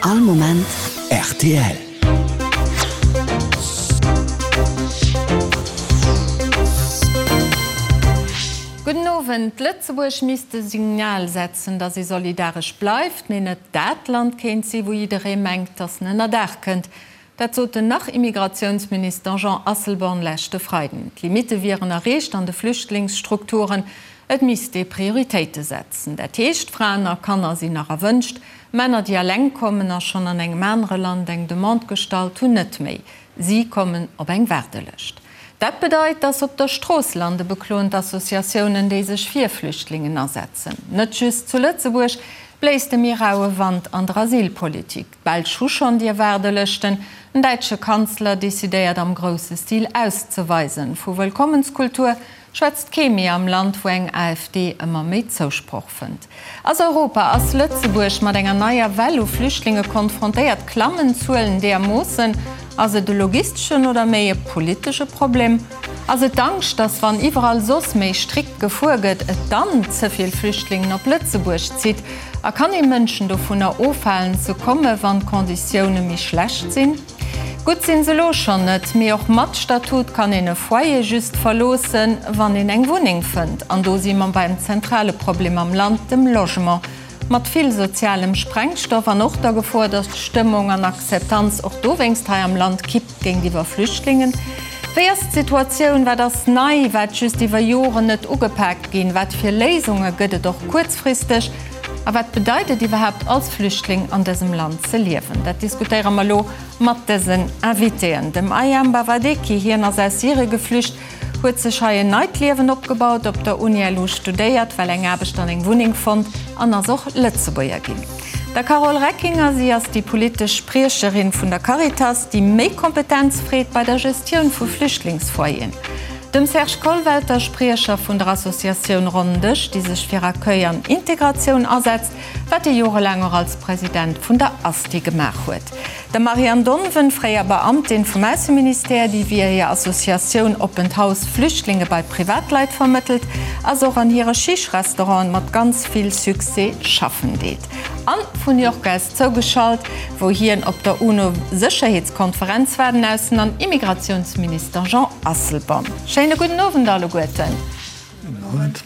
All Moment rtl. Gudden Owend. Lëtzebuerg misst e Signal setzen, datt ee solidaresch bleift, mee net dat Land kéint si wou jidderee mengt, datt en ënnerdaach kënnt. Dat sot den Nach-Immigratiounsminister Jean Asselborn leschte Freiden. D'Limitte wieren erreecht an de Flüchtlingsstrukturen. Et misst ee Prioritéite setzen. Dat heescht, Fraen a Kanner sinn nach erwënscht, Männer, déi eleng kommen a schonn an engem anere Land eng Demande gestallt hunn, net méi. Si kommen op eng Waardelëscht. Dat bedeit, dass se op der Strooss lande, bekloen d'Associatiounen, déi sech fir Flüchtlingen asetzen. Net just zu Lëtzebuerg bléist e méi raue Wand an der Asylpolitik. D'Belsch hu schonn dir Waardelëschten. Den däitsche Kanzler decidéiert am grousse Stil auszeweisen. Vu Wëllkommenskultur schwätzt kee méi am Land, wou eng AfD ëmmer méi Zousproch fënnt. Ass Europa, ass Lëtzebuerg mat enger neier Well u Flüchtlinge konfrontéiert? Klammen d'Zuelen deermoossen? Ass et e logisteschen oder méi e politesche Problem? Ass et d'Angscht, datt wann iwwerall soss méi strikt gefuer gëtt, et dann ze vill Flüchtlingen op Lëtzebuerg zitt? A kann ee Mënschen dovunner ofhalen ze komme wann d'Konditioune méi schlecht sinn? Gutt sinn se elo schonn net, mee och mat Statut kann een e Foyer just verloossen, wann een eng Wunneng fënnt. An do si mer beim zentrale Problem am Land, dem Logement. Mat vill sozialem Sprengstoff an och der Gefor, datt d'Stëmmung an Akzeptanz och dowéinst hei am Land kippt géintiwwer Flüchtlingen. Wéi ass d'Situatioun? Wat ass nei, wat just iwwer Joren net ugepaakt ginn? Wat fir Léisunge gëtt et och kuerzfristeg? A wat bedeit et iwwerhaapt als Flüchtling an dësem Land ze liewen? Dat diskutéiere mer elo mat dësen Invitéen. Dem Ayam Bawadeki, hien ass aus Syrie geflücht, huet sech hei en neit Liewen opgebaut, op der Uni LU studéiert, well eng Aarbecht an eng Wunneng fonnt an ass och Lëtzebuerger ginn. Der Carole Reckinger, si ass déi politesch Spriecherin vun der Caritas, déi méi Kompetenz freet bei der Gestioun vu Flüchtlingsfoyeren. Dem Serge Kollwelter, Spriecher vun der Associatioun Ronnen Dësch, déi sech fir Accueil an Integratioun asetzt, wat e jorelaang och als President vun der ASTI gemaach huet. Der Marianne Donven, fréier Beamtin vum Ausseministère, déi via hir Associatioun Oppent Haus Flüchtlinge bei Privatleit vermëttelt, a se och an hire Chiche-Restauranten mat ganz vill Succès schaffen deet. An vun New York aus zougeschalt, wou hien op der UNO-Sécherheetskonferenz war, den Aussen an Immigratiounsminister Jean Asselborn. Schéine gudden Owend alleguerten. Gudden Owend.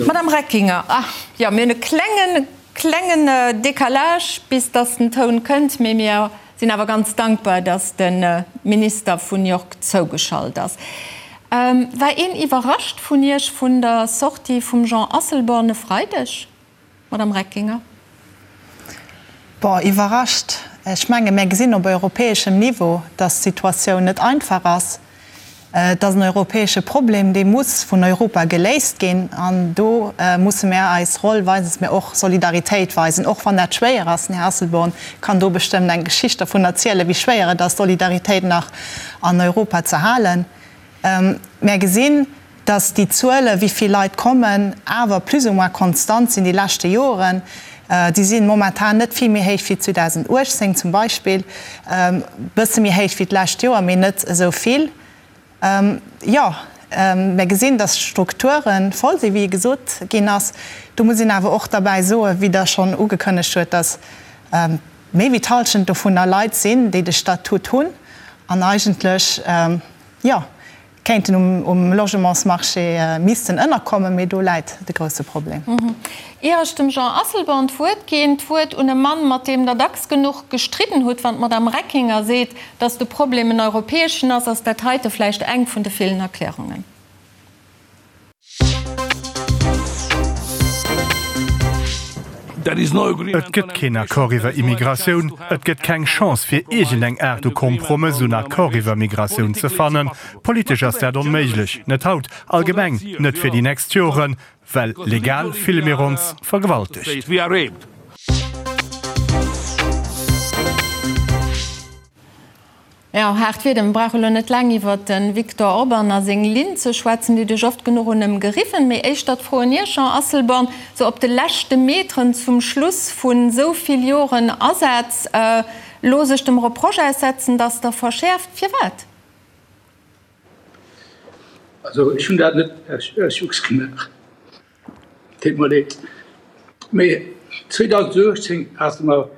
Madame Reckinger, ah jo, mir hunn e klengen, klengen Décalage, bis dass den Toun kënnt, mee mir sinn awer ganz dankbar, dass de Minister vun New York zougeschalt ass. War een iwwerrascht vun Iech vun der Sortie vum Jean Asselborn e Freideg? Madame Reckinger. Bon, iwwerrascht, ech menge mir gesinn op europäeschem Niveau, datt d'Situatioun net einfach ass. Et ass en europäesche Problem, dee muss vun Europa geléist ginn. An do musse mir eis Roll weisen, dass mir och Solidaritéit weisen, och wann dat schwéier ass. Den Här Asselborn kann do bestëmmt eng Geschicht dervun erzielen, wéi schwéier et ass, Solidaritéit nach an Europa ze halen. Mär gesinn, dass déi Zuele wéi vill Leit kommen, awer plus ou moins konstant sinn déi leschte Joren. Déi si momentan net vill méi héich wéi 2018 zum Beispill, e bësse méi héich wéi d'lescht Joer, mee net esou vill. Jo, mär gesinn, dass d'Strukture voll sinn, wéi gesot ginn ass. Do muss een awer och derbäi soen, wéi Der schonn ugekënnegt huet, dass méi wéi d'Hallschent dovunner Leit sinn, déi de Statut hunn an eigentlech, jo, kéinten um Logementsmarché missten ënnerkommen, mee do läit de grousse Problem. Ier ech dem Jean Asselborn d'Wuert ginn, d'Wuert un e Mann, mat deem Der dacks genuch gestridden hutt, Wann d'Madame Reckinger seet, datt de Problem en europäeschen ass, ass dat heite vläicht eng vun de villen Erklärungen. Et gëtt keen Accord iwwer Immigratioun. Et gëtt keng Chance fir iergendeng Aart u Kompromëss, un Accord iwwer Migratioun ze fannen. Politesch ass dat onméiglech. Net haut, allgemeng net fir déi nächst Joren, well legal fille mir ons vergewaltegt. Jo, haart Wieder. Mir brauche lo net laang iwwer de Viktor Orban a seng Linn ze schwätzen, déi duerch oft genuch un ëm geriwwen. Mee éischter d'Fro un Iech, Jean Asselborn, sou op de leschte Meteren zum Schluss vu sou vill Joren Asaz, lo sech dem Reproche aussetzen, datt Der verschäerft. Firwat? Also ech hunn dat net aus Jux gemaach, deet mer leed. Mee 2018 hate mer.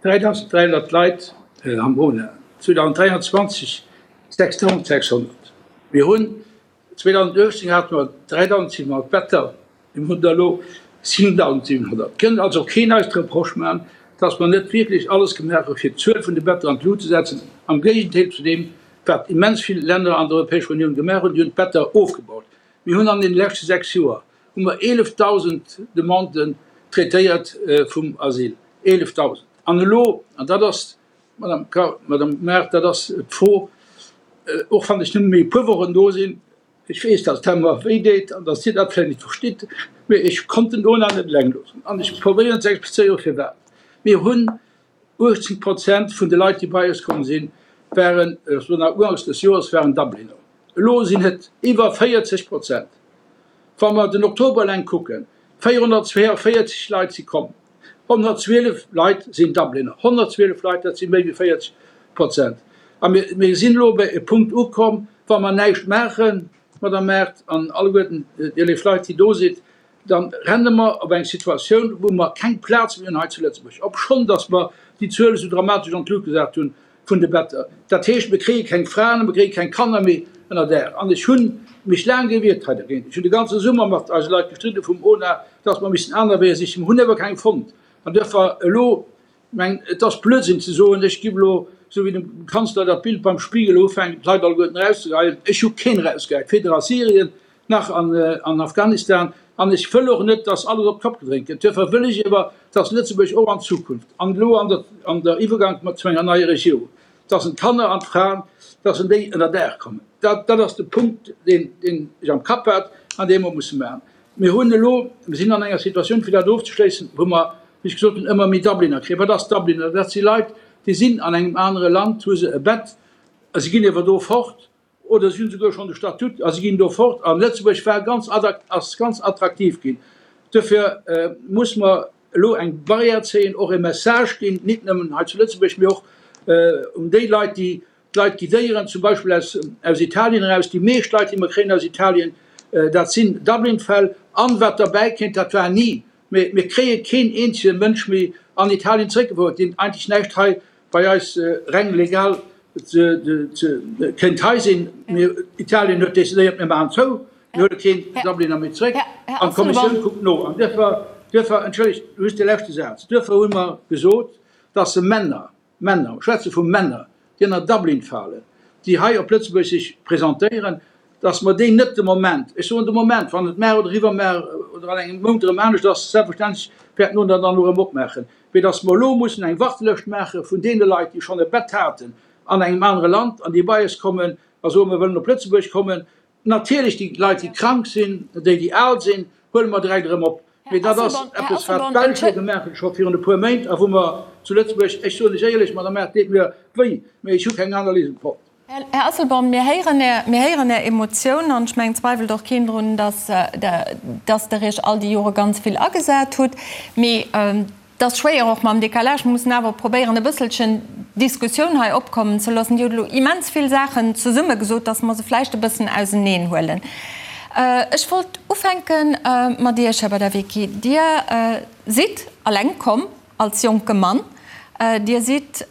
3.300 Leit am ONA, 2023 6.600. Mir hunn 2018 hate mer 3.700 Better, mir hunn der elo 7.700. Et kënnt also keen eis de Reproche maachen, dass mer net wierklech alles gemaach hu fir d'Zuel vun de Better an d'Lut ze setzen, am Géigendeel zu deem, wat immens vill Länner an der Europäescher Unioun gemaach hunn, déi hunn d'Better ofgebaut. Mir hunn an deene leschte 6 Joer hu mer 11.000 Demanden traitéiert vum Asyl, 11.000! An elo, an dat ass, Madame Kar, Madame Mart, dat ass d'Fro, och wann ech nëmme méi e puer Wochen do sinn, ech weess, dass dat mer wéi deet an dass Dir dat vläicht net verstitt, mee ech konnt den Ona net eleng loossen an ech probéieren ze explizéieren, firwat. Mir hunn 18 Prozent vun de Leit, déi bei eis komm sinn, waren, ech soen nach uganks des Joers, waren Dubliner. Elo sinn et iwwer 40 Prozent. Wa mer den Oktober eleng kucken, 442 Leit si komm, 112 Leit sinn Dubliner. 112 Leit, dat si méi wéi 40 Prozent. A mir sinn elo bei e Punkt ukomm, wa mer näischt maachen, Madame Mart an alleguerten Dir léif Leit, déi do sidd, da renne mer op eng Situatioun, wou mer keng Plaz méi hunn hei zu Lëtzebuerg, obschonn datt mer déi Zuel esou dramatesch an d'Lut gesat hunn vun de Better. Dat heescht, mir kréie keng Fraen a mir kréie keng Kanner méi ënner Daach. An ech hu mech laang gewiert hei dergéint. Ech hunn de ganze Summer mat eise Leit gestridde vum ONA, datt mer missten aner Weeër sichen. Mer hunn awer keng fonnt. An duerfir elo Meng, et ass Blödsinn ze soen, ech giff elo, esou wéi dem Kanzler dat Bild beim Spiegel ufänkt, d'Leit alleguerten erauszegeheien. Ech hu keen erausgehäit, weder a Syrien nach an Afghanistan. An ech wëll och net, dass alles op d'Kopp gedréint gëtt. Duerfir wëll ech ewer, dass Lëtzebuerg och an Zukunft, an elo an der an der Iwwergank mat zu enger neier Regierung, dass en d'Kanner an d'Fraen, dass en déi ënner Daach kommen. Dat dat ass de Punkt, deen deen ech am Kapp hat an dee mer musse maachen. Mir hunn elo, mir sinn an enger Situatioun, fir dat ofzeschléissen, wou mer, wéi ech gesot hunn, ëmmer méi Dubliner kréien. Wat ass Dubliner? Dat si Leit, déi sinn an engem anere Land, hu se e Bett, a si ginn ewer do fort, oder si hunn souguer schonn de Statut a si ginn do fort. A Lëtzebuerg war ganz, ass ganz attraktiv ginn. Duerfir muss mer elo eng Barrière zéien, och e Message ginn, nit nëmmen hei zu Lëtzebuerg, mee och un déi Leit, déi D'Leit guidéieren, zum Beispill aus aus Italien eraus. Déi meescht Leit, déi mer kréien aus Italien, dat sinn Dublin-Fäll. An wat derbäi kéint, dat war ni, mee mir kréie keen eenzege Mënsch méi an Italien zeréckgefouert, deen eigentlech näischt hei bei eis reng legal ze ze kéint hei sinn. Mir, Italien huet decidéiert, mir maachen zou, mir huele keen Dubliner méi zeréck. An d'Kommissioun kuckt no. An duerfir, duerfir, entschëllegt, just de leschte Saz, duerfir hu mer gesot, dass se Männer, Männer, ech schwätze vu Männer, déi ënner Dublin falen, déi hei op Lëtzebuerg sech presentéieren, datt mer déi net de Moment, ech soen de Moment, wann et mar oder iwwermar oder an engem Mount erëm anescht ass, selbstverständlech wäert mer dann erëm opmaachen, mee datt mer elo mussen eng Wartelëscht maache vun deene Leit, déi schonn e Bett haten an engem anere Land an déi bei eis kommen a soen, mer wëllen op Lëtzebuerg kommen. Natierlech déi Leit, déi krank sinn, déi, déi al sinn, huele mer direkt erëm op. Mee dat ass eppes, wat d'Belsch elo gemaach hunn, scho virun e puer Méint, a wou mer zu Lëtzebuerg, ech soen lech éierlech, Madame Err, et deet mir wéi, mee ech hu keng aner Léisung fonnt. Här Asselborn, mir héieren Är, mir héieren Är Emotioun an ech mengen, zweiwelt och keen drun, dass, dass Der Iech all déi Jore ganz vill agesat hutt. Mee Et ass schwéier, och mam Décalage. Mir mussen awer probéieren, e bësselchen Diskussioun hei opkommen ze loossen. Dir hutt elo immens vill Saachen zesumme gesot, dass mer se vläicht e bëssen auseneen huelen. Ech wollt ufänke mat Iech, Här Badawiecki. Dir sidd eleng komm als jonke Mann. Dir sidd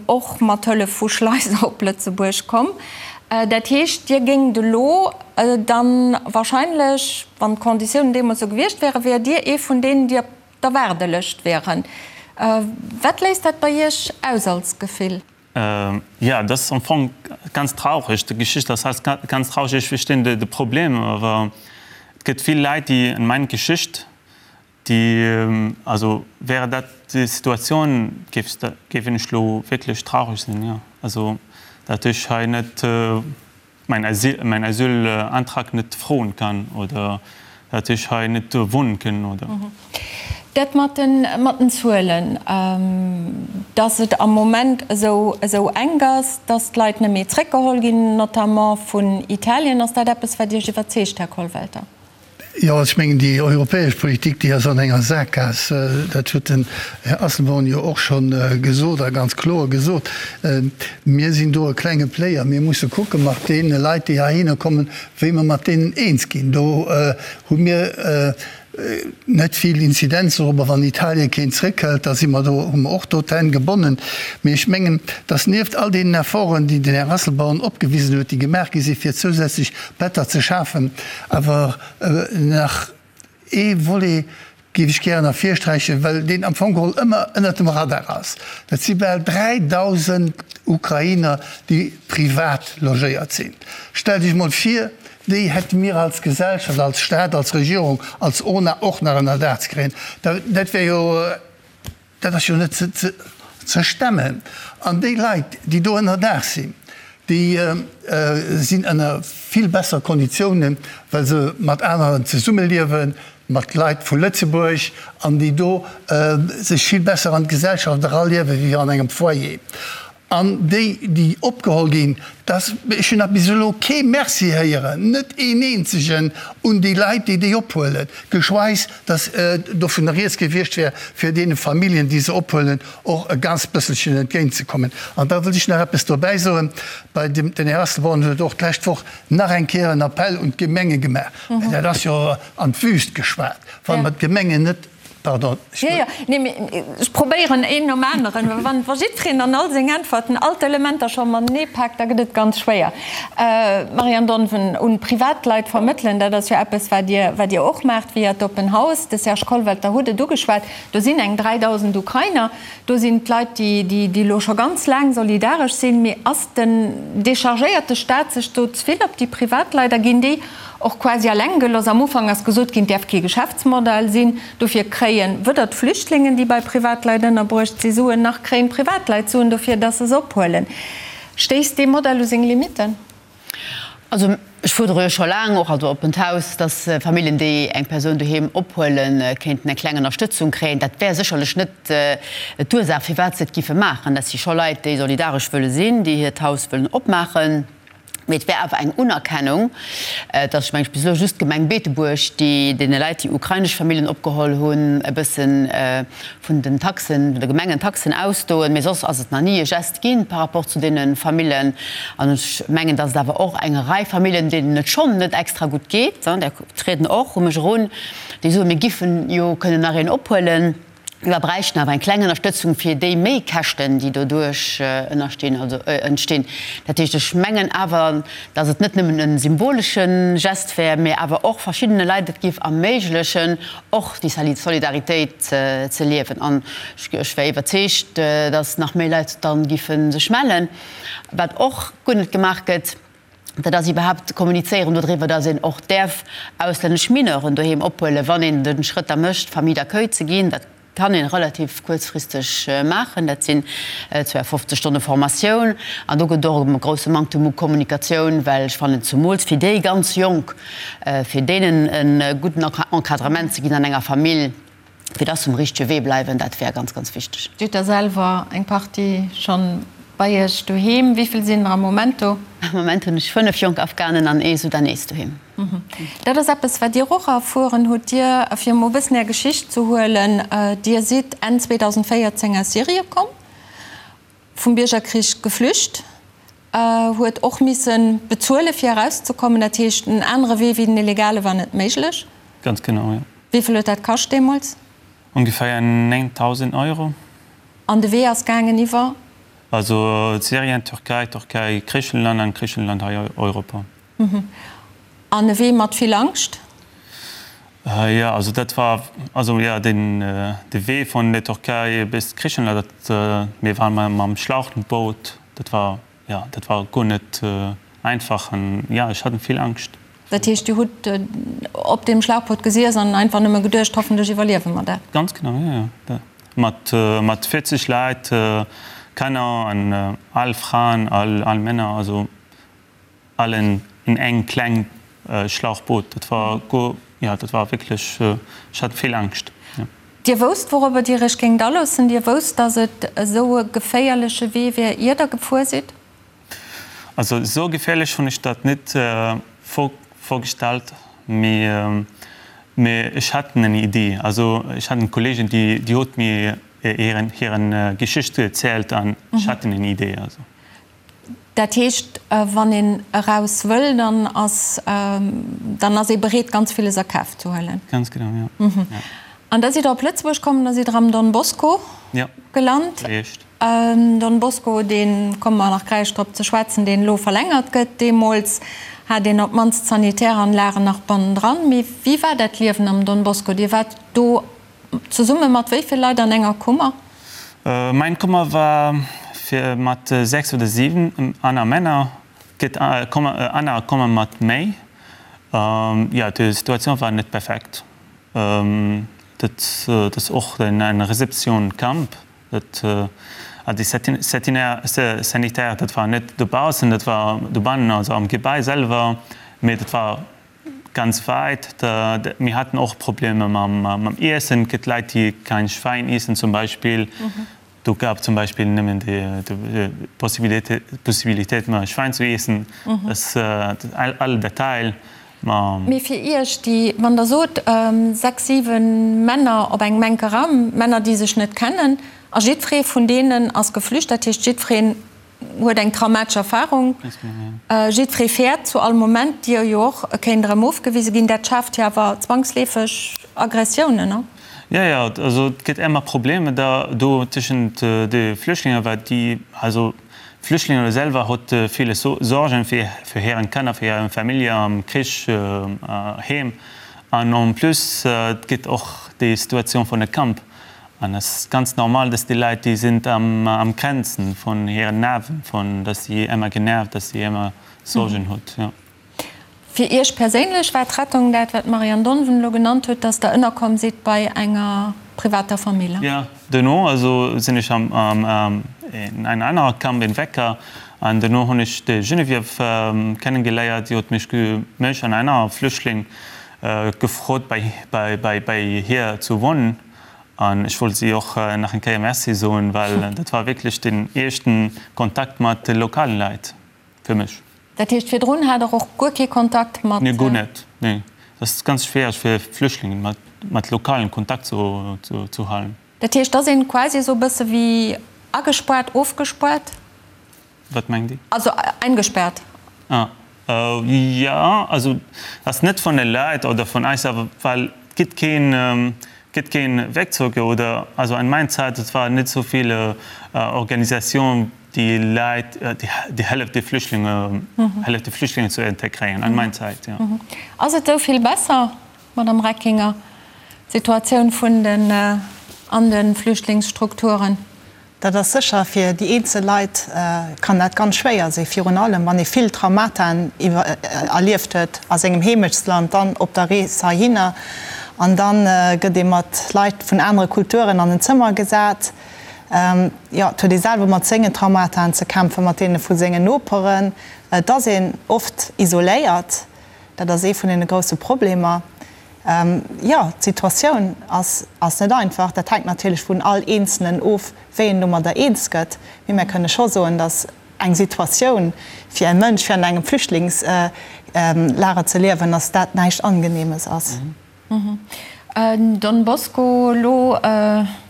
och mat Hëllef vu Schleiser op Lëtzebuerg komm. Dat heescht, Dir géingt elo dann wahrscheinlech, wann d'Konditiounen deemools esou gewiescht wären, wäert Dir ee vun deenen, déi op der Waardelëscht wieren. Wat léist dat bei Iech aus als Gefill? Jo, dat ass am Fong ganz traureg. Déi Geschicht ass halt ganz traureg. Ech verstinn de Problem, awer et gëtt vill Leit, déi an meng Geschicht, déi, also wäre dat déi Situatioun, géif géif ech elo wierklech traureg sinn, jo. Also dat ech hei net. mäin Asyl, mäin Asylantrag net froen kann oder dat ech hei net wohnen kënnen oder. Dat mat den, mat den Zuelen, dass et am Moment esou, esou enk ass, dass d'Leit net méi zréckgeholl ginn, notamment vun Italien, ass dat eppes, wat Iech iwwerzeegt, Här Kollwelter? Jo, ech mengen, déi europäesch Politik, déi ass an enger Sakgaass. Dat huet den Här Asselborn jo och scho gesot a ganz kloer gesot. Mir sinn do e klenge Player. Mir musse kucke mat deene Leit, déi heihinner kommen, wéi mer mat deenen eens ginn. Do hu mir. net vill Inzidenz dorobber. Wann Italien keen zréckhëlt, da si mer do, hu mer och do d'Hänn gebonnen. Mee ech mengen, datt nieft all deenen Efforten, déi den Här Asselborn opgewisen huet, déi gemaach gi si fir zousätzlech Better ze schafen, awer nach ee Volet géif ech gären ervirsträichen, well deen am Fong geholl ëmmer ënnert dem Radar ass, dat si bal 3.000 Ukrainer, déi privat logéiert sinn. Stellt Iech emol vir, déi hätte mir als Gesellschaft, als Staat, als Regierung, als ONA och nach ënner Daach ze kréien. Dat wär jo. Dat ass jo net ze stemmen. An déi Leit, déi do ënnerdaach sinn, déi sinn ënner vill besser Konditiounen, well se mat aneren zesummeliewen, mat Leit vu Lëtzebuerg, an déi do sech vill besser an d'Gesellschaft eraliewen, wéi an engem Foyer. An déi, déi opgeholl ginn, dass, ech hunn nach bis elo kee Merci héieren, net een eenzegen, un déi Leit, déi déi ophuelen, geschweis dass dovunner rieds gewiescht wär, fir deene Familljen, déi se ophuelen, och e ganz bësselchen entgéintzekommen. An da wëllt ech nach eppes dobäi soen, bei dem, den Här Asselborn huet och d'lescht Woch nach eng Kéier en Appell un d'Gemenge gemaach, mä dat ass jo an d'Wüst geschwat, wa mer d'Gemengen net Pardon, ech Jo, jo, nee, mee ech probéieren een nom aneren, well wann wa jiddwereen an all seng Äntwerten all d'Elementer scho matenee paakt, da gëtt et ganz schwéier. Marianne Donven, un Privatleit vermëttelen, dat ass jo eppes, wat Dir, wat Dir och maacht via d'Open House. De Serge Kollwelter huet et ugeschwat, do sinn eng 3.000 Ukrainer, do sinn d'Leit, déi, déi, déi elo scho ganz laang solidaresch sinn. Mee ass den, dechargéiert de Staat sech do ze vill op déi Privatleit a ginn déi Och quasi alleng gelooss. Am Ufank ass gesot ginn, et däerf kee Geschäftsmodell sinn. Dofir kréien weder d'Flüchtlingen, déi bei Privatleit ënnerbruecht si, Suen, nach kréien d'Privatleit Suen dofir, dass se se ophuelen. Stéisst dee Modell u seng Limitten? Also ech fuerdere jo scho laang, och als Oppent Haus, dass Familljen, déi eng Persoun doheem ophuelen, kéinten eng kleng Ënnerstëtzung kréien. Dat wär sécherlech net d'Ursaach, firwat se et giffe maachen. Dat si scho Leit, déi solidaresch wëlle sinn, déi hiert Haus wëllen opmaachen. Mee et wär awer eng Unerkennung, et ass, meng ech, bis elo just d'Gemeng Beetebuerg, déi deene Leit, déi ukrainesch Familljen opgeholl hunn, e bësse vun den Taxen, vun de Gemengentaxen ausdoen. Mee soss ass et nach ni e Geste gi par rapport zu deene Famillen. An ech mengen, datt et awer och eng Rei Famillen, deenen et schonn net extra gutt geet, där trieden och u mech erun, déi soen, mir giffen jo kënnen nach een ophuelen. Mir bräichten awer eng kleng Ënnerstëtzung fir déi Méikäschten, déi doduerch ënnerstinn, also entstinn. Dat heescht, ech mengen awer, datt et net nëmmen e symbolesche Gest wär, mä awer och verschiddene Leit et géif erméiglechen, och déi Solidaritéit ze liewen. An ech wär iwwerzeegt, datt nach méi Leit da giffe sech mellen. Wat och guer net gemaach gëtt, Dat ass iwwerhaapt kommunizéieren dodriwwer, datt een och däerf auslännesch Mineuren doheem ophuelen, wann een de Schrëtt da mécht, Famille d'accueil ze ginn. Dat kann ee relativ kuerzfristeg maachen. Dat sinn 52 Stonne Formatioun. An do gëtt et och e grousse Manktem u Kommunikatioun, well ech fannen, zemools fir déi ganz Jonk, fir deenen e gudden Encadrement ze ginn an enger Famill, fir dass se um richtege Wee bleiwen, dat wär ganz, ganz wichteg. Dir hutt der selwer eng Partie schonn bei Iech doheem. Wéi vill sinn der am Moment do? Am Moment hunn ech 5 jonk Afghanen an ee Sudanees doheem. Dat ass eppes, wat Dir och erfueren hutt. Dir, fir emol e bëssen Är Geschicht ze huelen, Dir sidd Enn 2014 aus Syrie komm, vum Biergerkrich geflücht, huet och misse bezuele fir erauszekommen. Dat heescht, en anere Wee wéi den illegale war net méiglech. Ganz genau, jo. Wéi vill huet dat kascht deemools? Ongeféier 9.000 Euro. An de Wee ass gaangen iwwer? Also Syrien, Türkei, Türkei, Griichenland an Griichenland hei Europa. An e Wee mat vill Angscht? Jo, also dat war, also jo, den de Wee vun der Türkei bis Griichenland, dat, mir waren mam Schlauchboot, dat war, jo, dat war guer net einfach an jo, ech hat vill Angscht. Dat heescht, Dir hutt op deem Schlauchboot gesiess an einfach nëmme geduecht, hoffentlech iwwerliewe mer dat? Ganz genau, jo, jo. Mat, mat 40 Leit, Kanner an al Fraen, al, al Männer, also allen in eng kleng Schlauchboot. Dat war go, jo, dat war wierklech, ech hat vill Angscht, jo. Dir wousst, wourobber Dir Iech géingt aloossen? Dir wousst, datt et esou e geféierleche Wee wär, ier Der gefuer sidd? Also esou geféierlech hunn ech dat net vorgestellt, mee mee ech hat eng Idee. Also ech hat en Kollegen, déi déi huet mir hiren hiren Geschicht erzielt an ech hat eng Idee. Also. Dat heescht, wann een eraus wëll, dann ass, dann ass ee bereet, ganz villes a Kaf ze huelen. Ganz genau, jo. An da sidd Der op Lëtzebuerg komm, da sidd Der am Don Bosco gelant. Don Bosco, dee komme mer nach gläich drop ze schwätzen, deen elo verlängert gëtt. Deemools hat een op d'mannst d'Sanitäranlagen nach bannendran. Mee wéi war dat Liewen am Don Bosco? Dir waart do zesumme mat wéi vill Leit an enger Kummer? Mäin Kummer war fir mat 6 oder 7 aner Männer. Gëtt aner komme mat méi. Jo, d'Situatioun war net perfekt. Dat ass och eng Reception Camp. Dat déi Sanitaire, dat war net dobaussen, dat war dobannen, also am Gebai selwer, mee dat war ganz wäit. Mir haten och Problemer mam Iessen. Et gëtt Leit, déi kein Schwäin iessen zum Beispill. Do gab zum Beispill nëmmen déi Possibilitéit, Schwäin zu iessen. Dat all Detail. Ma. Mee fir Iech, déi, wann Der sot, sechs, siwe Männer op engem enke Raum, Männer, déi sech net kennen, a jiddweree vun deenen ass geflücht, dat heescht, jiddwereen huet eng traumatesch Erfahrung, jiddweree fäert zu all Moment, Dir jo och, e kéint erëm ofgewise ginn, dat schaaft jo awer zwangsleefeg Aggressiounen, ne? Jo, jo, also et gëtt èmmer Problemer da do tëschent de Flüchtlinge, well déi, also d'Flüchtlinge selwer hott ville Sorgen fir fir hiren Kanner, fir hiren Famillje am Krich heem. An en plus et gëtt och déi Situatioun vun de Camp. An et ass ganz normal, dass déi Leit, déi sinn am am Grenzen vun hiren Nerven, vun dass si èmmer genervt, dass si èmmer Sorgen hutt, jo. Fir Iech perséinlech war d'Rettung dat, wat d'Marianne Donven elo genannt huet, dass Der ënnerkomm sidd bei enger privater Famill? Jo, duerno also sinn ech am en en anerer Camp in Wecker an duerno hunn ech d'Geneviève kennegeléiert. Si huet mech mech an aner Flüchtling gefrot bei bei bei bei hir zu wohnen an ech wollt si och nach eng Kéier Merci soen, well dat war wierklech den éischten Kontakt mat de lokalen Leit fir mech. Dat heescht, virdrun hat Der och guer kee Kontakt mat. Nee, guer net. Nee. Et ass ganz schwiereg fir Flüchtlingen mat, mat Lokalen Kontakt zu, zu halen. Dat heescht, et ass een quasi esou e bësse wéi agespaart, ofgespaart? Wat mengt Dir? Also eingesperrt. Ah, jo, also ass net vun de Leit oder vun eis, awer well et gëtt keen, gëtt keen Wegzug oder, also an mein Zäit, et war net esou vill Organisation, Déi Leit, déi hëlleft de Flüchtlinge, hëlleft de Flüchtlinge ze integréieren, an mein Zäit, jo. Ass et esou vill besser, Madame Reckinger, d'Situatioun vun den an de Flüchtlingsstrukturen? Dat ass sécher, fir déi eenzel Leit kann dat ganz schwéier sinn, virun allem wann ee vill Traumataen erlieft huet a sengem Heemechtsland, dann op der Rees heihinner an da gëtt ee mat Leit vun anere Kulturen an en Zëmmer gesat. Jo, et huet ee selwer mat sengen Traumataen ze kämpfen, mat deene vu sengen Noperen. Et ass een oft isoléiert, dat ass ee vun deene grousse Problemer. Jo, d'Situatioun ass ass net einfach. Dat hänkt natierlech vun all Eenzelen of, wéi en domadder eens gëtt. Mee mär kënne scho soen, datt eng Situatioun fir e Mënsch, fir an engem Flüchtlingslager ze liewen, datt dat näischt Angenehmes ass. Don Bosco, Elo,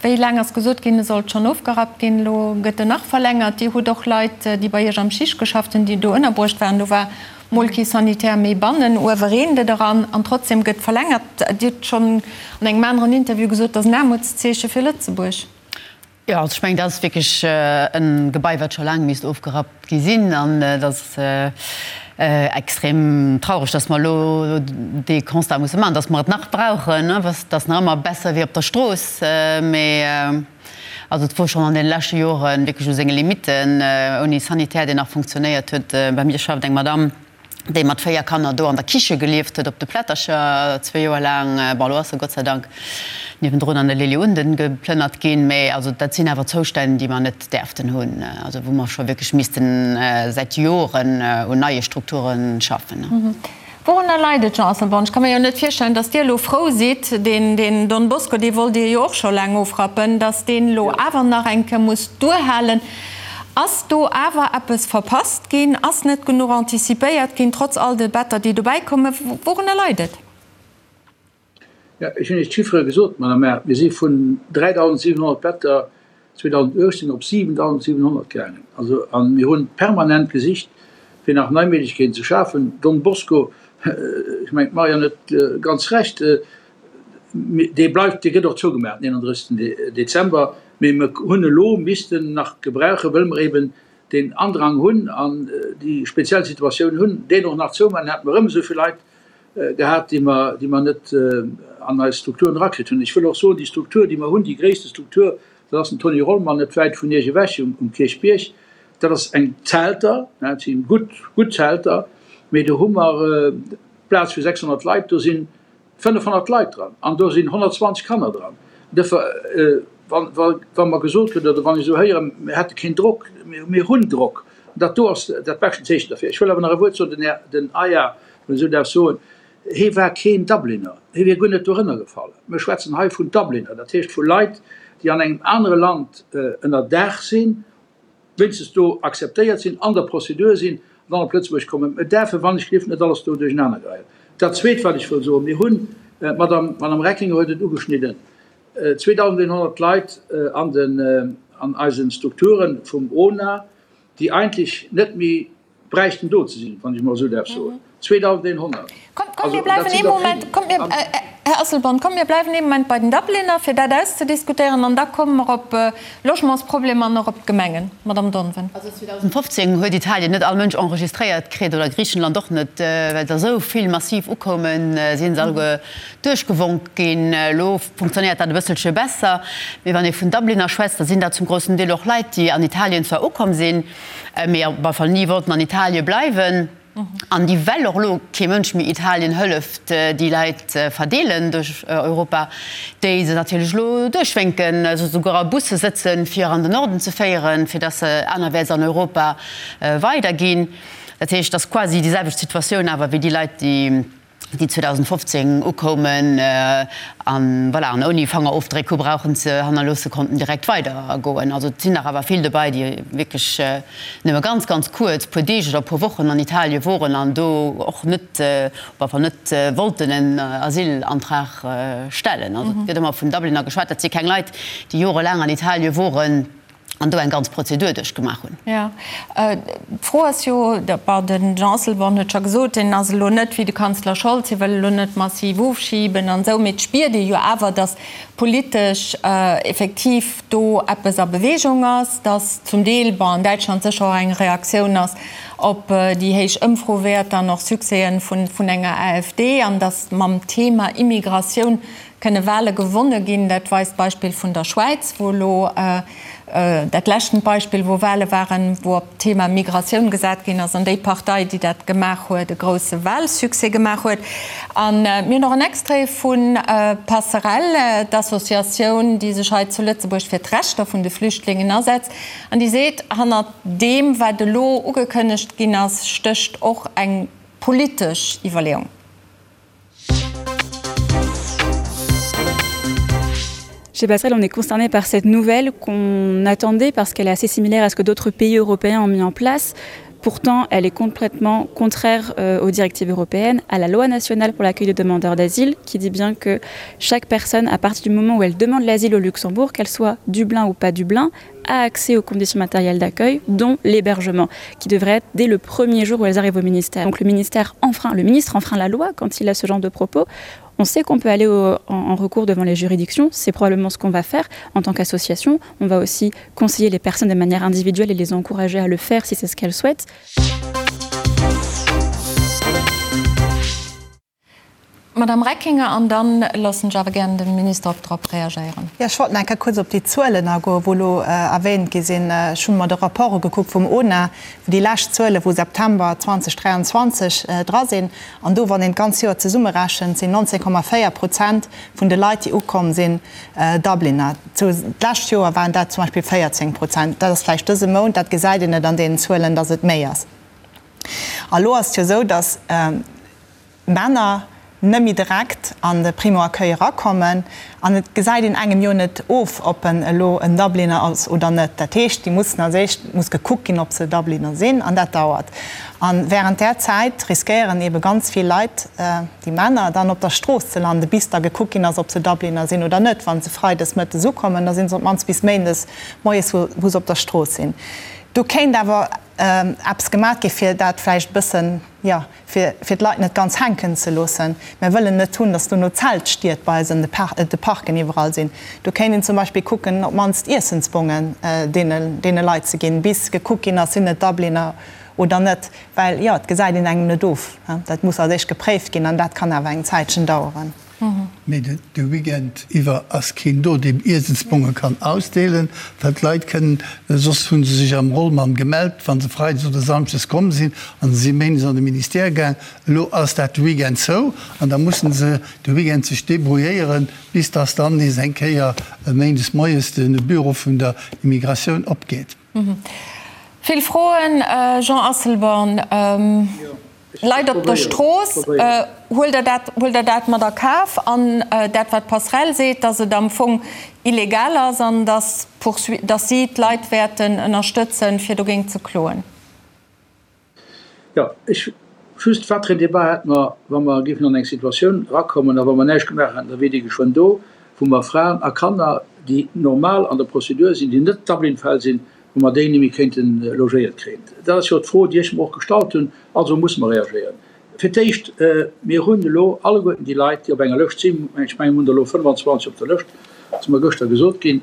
wéi laang ass gesot ginn, e sollt schonn ofgerappt ginn. Elo gëtt en nach verlängert. Dir hutt och Leit, déi bei Iech am Schicht geschafft hunn, déi do ënnerbruecht waren. Do war mol kee Sanitär méi bannen, uewe reent et eran an trotzdem gëtt verlängert. Dir hutt schonn an engem aneren Interview gesot, dat ass en Aarmutszeeche fir Lëtzebuerg. Jo, also ech mengen, dat ass wierklech e Gebai, wat scho laang misst ofgerappt gi sinn. An et ass extrem traureg, dass mer elo dee Constat musse maachen, dass mer et nach brauchen. Et ass nach ëmmer besser wéi op der Strooss, mee also et wor schonn an deene leschte Jore wierklech u senge Limitten, ouni Sanitär, deen nach funktionéiert huet. Bei mir schafft eng Madamm, déi mat 4 Kanner do an der Kiche gelieft huet, op de Plättercher, zwee Joer laang. Bon, elo ass se Gott sei Dank niewendrun an de Lily Unden geplënnert ginn, mä also dat sinn awer Zoustänn, déi mer net däerften hunn, also wou mer scho wierklech missten säit Joren un neie Strukture schaffen. Wourunner leit et, Jean Asselborn? Ech ka mir jo net virstellen, datt Dir elo frou sidd, deen, deen Don Bosco, dee wollt Dir jo och scho laang ofrappen, datt deen elo awer nach eng Kéier muss duerhalen. Ass do awer eppes verpasst ginn? Ass net genuch anticipéiert ginn, trotz all de Better, déi dobäi kommen? Wourunner leit et? Jo, ech hunn Iech d'Chiffere gesot, Madame Err. Mir si vun 3.700 Better. 2018 op 7.700 gaangen. Also, a mir hu permanent gesicht, fir nach nei Méiglechkeeten ze schafen. Don Bosco, ech mengen, d'Marianne huet ganz Recht, dee bleift, dee gëtt och zougemaach den 31. Dezember, mee mir hunn elo missten nach gebrauchen, wëll mer eben deen Andrang hunn an déi speziell Situatioun hunn, deen och nach zoumaachen, hätte mer erëm esou vill Leit gehat, déi mer, déi mer net an eis Strukturen erakritt hunn. Ech wëll och soen, déi Struktur, déi mer hunn, déi gréisste Struktur, dat ass den Tony Rollmann net wäit vun Iech ewech um Kierchbierg, dat ass eng Zelter, dat si gutt, gutt Zelter, mee do hu mer Plaz fir 600 Leit, do sinn 500 Leit dran an do sinn 120 Kanner dran. Duerfir, wa mer gesot gëtt oder wann ech esou héieren, mir hätte keen Drock, mir hunn Drock, dat do ass dat beschten Zeechen derfir. Ech wëll awer nach e Wuert soen, den Här, den Aya, wann ech esou däerf soen, hee war keen Dubliner, hie wier guer net dorënner gefall. Mir schwätzen hei vun Dubliner, dat heescht vu Leit, déi an engem anere Land ënner Daach sinn, wéinstens do akzeptéiert sinn, an der Prozedur sinn an dann op Lëtzebuerg kommen. Mir däerfen, wann ech gelift, net alles do duerchenaner geheien. Dat Zweet, wat ech wëll soen, Mir hunn, d'Madame, d'Madame Reckinger huet et ugeschnidden, 2.100 Leit an den, an eise Strukture vum ONA, déi eigentlech net méi bräichten do ze sinn, wann ech emol esou däerf soen, 2.100. Kommt, kommt, mir bleiwen ee Moment, kommt mir, Här Asselborn, kommt, mir bleiwen ee Moment bei den Dubliner, fir dat auszediskutéieren, an da komme mer op Logementsproblemer an och op d'Gemengen. Madame Donven. Also 2015 huet Italien net all Mënsch enregistréiert kritt, oder Griichenland och net, well der esou vill massiv ukoumen, si se alleguer duerchgewonk ginn. Elo funktionéiert dat e bësselche besser. Mee wann ee vun Dubliner schwätzt, da sinn dat zum groussen Deel och Leit, déi an Italien zwar ukomm sinn, mee op alle Fall ni wollten an Italie bleiwen an déi, well och elo kee Mënsch méi Italien hëlleft, déi Leit verdeelen duerch Europa, déi se natierlech elo duerchwénken, se souguer a Busse sëtzen, fir an den Norden ze féieren, fir datt se anerwäerts an Europa weiderginn. Dat heescht, et ass quasi déi selwecht Situatioun awer wéi déi Leit, déi. déi 2015 ukoumen an, voilà, an ouni Fangerofdréck hu brauchen ze hannerloosse konnten direkt weider goen. Also et sinn nach awer vill dobei, déi wierklech nëmme ganz, ganz kuerz, puer Deeg oder puer Wochen an Italie woren an do och net, op alle Fall net wollten en Asylantrag stellen. Also et gëtt ëmmer vun Dubliner geschwat, dat si keng Leit, déi jorelaang an Italie woren. an do eng ganz Prozedur duerchgemaach hunn. Jo, d'Fro ass jo, bon, de Jean Asselborn huet scho gesot, deen ass elo net wéi de Kanzler Scholz, hie wëll elo net massiv ofschiben an esou, mee et spiert ee jo awer, datt politesch effektiv do eppes a Bewegung ass, datt zum Deel, bon, an Däitschland sécher och eng Reaktioun ass op déi héich Ëmfrowäerter an och Succèsen vun enger AfD an datt mam Thema Immigratioun Kënne Wale gewonne ginn? Dat weist d'Beispill vun der Schwäiz, wou elo dat leschten Beispill, wou Wale waren, wou op d'Thema Migratioun gesat ginn ass an déi Partei, déi dat gemaach huet, e grousse Walsuccès gemaach huet. A mir hunn och en Extrait vu Passerell, d'Associatioun, déi sech hei zu Lëtzebuerg fir d'Rechter vun de Flüchtlingen asetzt an déi seet, hannert deem, wat elo ugekënnegt ginn ass, stécht och eng politesch Iwwerleeung. Chez Passerelle, on est concerné par cette nouvelle qu'on attendait parce qu'elle est assez similaire à ce que d'autres pays européens ont mis en place. Pourtant, elle est complètement contraire euh, aux directives européennes, à la loi nationale pour l'accueil des demandeurs d'asile, qui dit bien que chaque personne, à partir du moment où elle demande l'asile au Luxembourg, qu'elle soit Dublin ou pas Dublin, a accès aux conditions matérielles d'accueil, dont l'hébergement, qui devrait être dès le premier jour où elles arrivent au ministère. Donc le ministère enfreint, le ministre enfreint la loi quand il a ce genre de propos. On sait qu'on peut aller au, en, en recours devant les juridictions, c'est probablement ce qu'on va faire en tant qu'association. On va aussi conseiller les personnes de manière individuelle et les encourager à le faire si c'est ce qu'elles souhaitent. Madame Reckinger, an da loossen ech awer gären de Minister och drop reagéieren. Jo, ech wollt nach eng Kéier kuerz op déi Zuelen agoen, wou elo erwähnt gi sinn. Ech hu mer de Rapport ugekuckt vum ONA, wou déi lescht Zuele vu September 2023 dra sinn. An do, wann een d'ganz Joer zesummerechent, sinn 19,4 Prozent vun de Leit, déi ukomm sinn, Dubliner. D'lescht Joer waren dat zum Beispill 14 Prozent. Dat ass vläicht dëse Mount, dat gesäit een net an deenen Zuelen, datt et méi ass. A lo ass et jo esou, datt Männer. net méi direkt an de Primo-Accueil erakommen. An et gesäit een engem jo net of, ob en elo en Dubliner ass oder net. Dat heescht, déi mussen als éischt muss gekuckt ginn, ob se Dubliner sinn, an dat dauert. A während där Zäit riskéieren eebe ganz vill Leit, déi Männer, dann op der Strooss ze landen, bis da gekuckt ginn ass, ob se Dubliner sinn oder net. Wa se freides mëttes ukommen, da si se op d'mannst bis méindes moies, wou se op der Strooss sinn. Do kéint awer eppes gemat gi fir dat vläicht e bëssen, jo, fir fir d'Leit net ganz hänken ze loossen. Mär wëllen net hunn, datt dono Zeltstied bei eis an de Parken iwwerall sinn. Do kéint een zum Beispill kucken, op d'mannst Iessensbongen deene deene Leit ze ginn, bis gekuckt ginn ass, sinn et Dubliner oder net. Well, jo, et gesäit een engem net of. Dat muss als éischt gepréift ginn an dat kann awer eng Zäitchen daueren. Mee de Weekend iwwer ass keen do, deen Iessensbonge kann ausdeelen, well d'Leit kënnen, soss hu se sech am Rollmann gemellt, wa se freides oder samschdes komm sinn, an se si méindes an de Ministère gaang. Elo ass dat de Weekend zou an da mussen se de Weekend sech debrouilléieren, bis dass dann nees eng Kéier méindes moies de Büro vun der Immigratioun opgeet. Vill Froen, Jean Asselborn. Leit op der Strooss, huelt Der dat, huelt Der dat mat a Kaf? An dat, wat d'Passerell seet, datt et am Fong illegal ass an datt d'Poursuite, datt si d'Leit wäerten ënnerstëtzen, fir dogéint ze kloen? Jo, ech just, wat fir en Débat hätte mer, wa mer géifen an eng Situatioun erakommen a wa mer näischt gemaach hätten, da wier déi geschwënn do, wou mer Fraen a Kanner, déi normal an der Prozedur sinn, déi net Dublin-Fäll sinn, wou mer déi némme kéinte logéiert kréien. Dat ass jo d'Fro, déi ech mer och gestallt hunn. Also musse mer reagéieren. Fir d'éischt, mir hunn elo alleguerten déi Leit, déi op enger Lëscht sinn, ech mengen, mir hunn der elo 25 op der Lëscht, ass mer gëschter gesot ginn,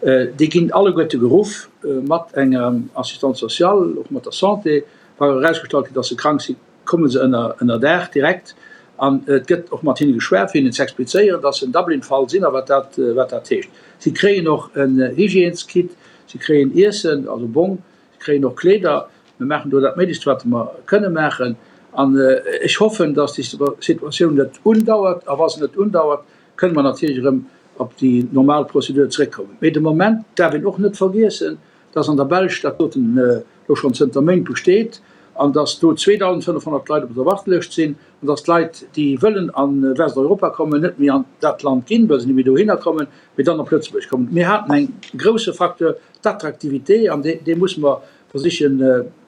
déi ginn alleguerte geruff mat enger Assistante sociale, och mat der Santé. Wa erausgestallt gëtt, dass se krank sinn, komme se ënner Daach direkt an et gëtt och mat hinne geschwat, fir hinnen ze explizéieren, dass se en Dublin-Fall sinn a wat dat, wat dat heescht. Si kréien och en Hygièneskit, si kréien Iessen, also Bong, Si kréien och Kleeder. Mir maachen do dat Méiglechst, wat mer kënne maachen. An ech hoffen, dass déi Situatioun net undauert. A wa se net undauert, kënne mer natierlech erëm op déi normal Prozedur zeréckkommen. Mee de Moment darf een och net vergiessen, dass an der Belsch dat doten elo schonn zënter Méint besteet an dass do 2.500 Leit op der Wartelëscht sinn an dass d'Leit, déi wëllen a Westeuropa kommen, net méi an dat Land ginn, well se net méi dohinner kommen, mee dann op Lëtzebuerg kommen. Mir haten eng grousse Facteur d'Attraktivité, an dee musse mer versichen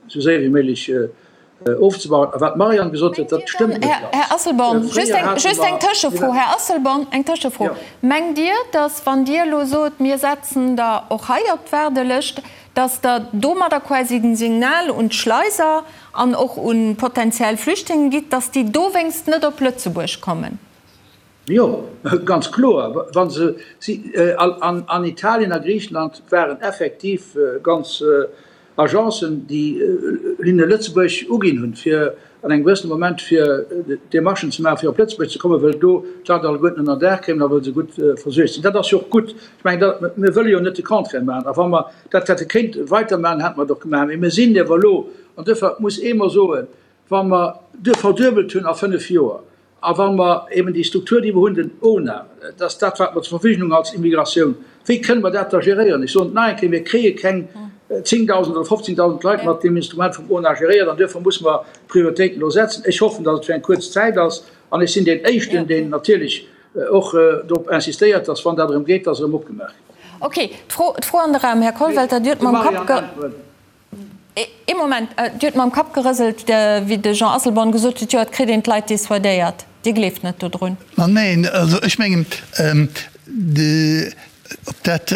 esou séier wéi méiglech ofzebauen. A wat d'Marianne gesot huet, dat stëmmt net ganz. Här Asselborn, just eng Tëschefro, Här Asselborn, eng Tëschefro. Mengt Dir, datt, wann Dir elo sot, mir setzen der och hei op d'Waardelëscht, datt Der domadder quasi den Signal un d'Schleiser an och u potenziell Flüchtlinge gitt, datt déi dowéinst net op Lëtzebuerg kommen? Jo, ganz kloer. Wa se si an Italien a Griichenland waren effektiv ganz Agencen, déi hinne Lëtzebuerg uginn hunn, fir an engem gewëssene Moment fir Demarchen ze maachen, fir op Lëtzebuerg ze kommen, wëll do d'Leit alleguerten ënner Daach kéimen a wëll se gutt versuergt sinn. Dat ass jo och gutt. Ech mengen, dat, mir wëlle jo net de Contraire maachen. A wa mer dat hätte kéinte weitermaachen, hätte mer et och gemaach. Mee mir sinn ewer elo, an duerfir muss ee mer soen, wa mer verduebelt hunn a fënnf Joer, A wa mer eben déi Struktur, déi mer hunn, den ONA, dat ass dat, wat mer zur Verfügung hunn als Immigratioun, wéi kënne mer dat da geréieren? Ech soen et nach eng Kéier, Mir kréie keng 10.000 oder 15.000 Leit mat deem Instrument vum ONA geréiert an duerfir musse mer d'Prioritéiten elo setzen. Ech hoffen, datt et fir eng kuerz Zäit ass an ech sinn deen Éischten, deen natierlech och drop insistéiert, datt, wann dat erëm geet, datt erëm opgemaach gëtt. Okay, d'Fro an de Raum, Här Kollwelter, Dir hutt mam Kapp ge. Ee Moment, Dir hutt mam Kapp gerëselt, wéi de Jean Asselborn gesot huet, jo, et kritt een d'Leit dissuadéiert. Dir gleeft net dodrun? Ma neen, also ech mengen, ob dat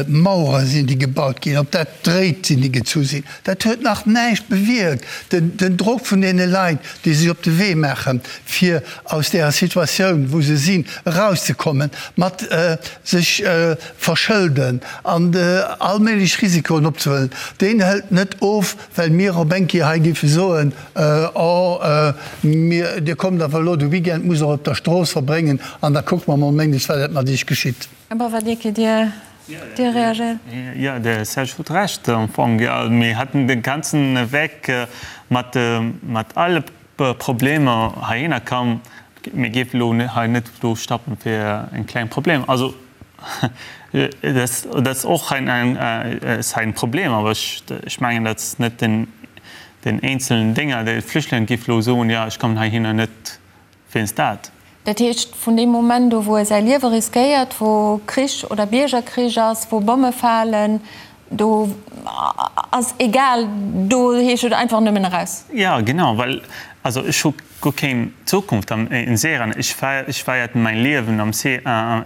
Mauere sinn, déi gebaut ginn, ob dat Dréit sinn, déi gezu sinn, dat huet nach näischt bewierkt. Den Drock vun deene Leit, déi sech op de Wee maachen, fir aus deeër Situatioun, wou se sinn, erauszekommen, mat sech verschëlden an all méiglech Risikoen opzehuelen, deen hëlt net of, well mir op eng Kéier hei géife soen, Oh, mir, Dir kommt awer elo de Weekend, musst Der op der Strooss verbréngen an da kucke mer mol méindes, wat dat mat Iech geschitt. Här Bavadier, Dir, Dir reagéiert? Jo, de Serge huet Recht am Fong. Jo, mir hätten de ganzen Weg mat, mat alle Problemer heihinner komm. Mir géifen elo hei net do stoppen fir en kleng Problem. Also dat ass och ein Problem, awer ech mengen dat ass net den den eenzelnen Dénger. De Flüchtlinge géif elo soen, jo ech kommen heihinner net wéinst dat. Dat heescht, vun deem Moment u wou e säi Liewe riskéiert, wou Krich oder Biergerkrich ass, wou Bomme falen, do ass egal, do heescht et einfach nëmmen eraus. Jo, genau, well also ech hu guer keng Zukunft in Syrien. Ech feiert mäin Liewen am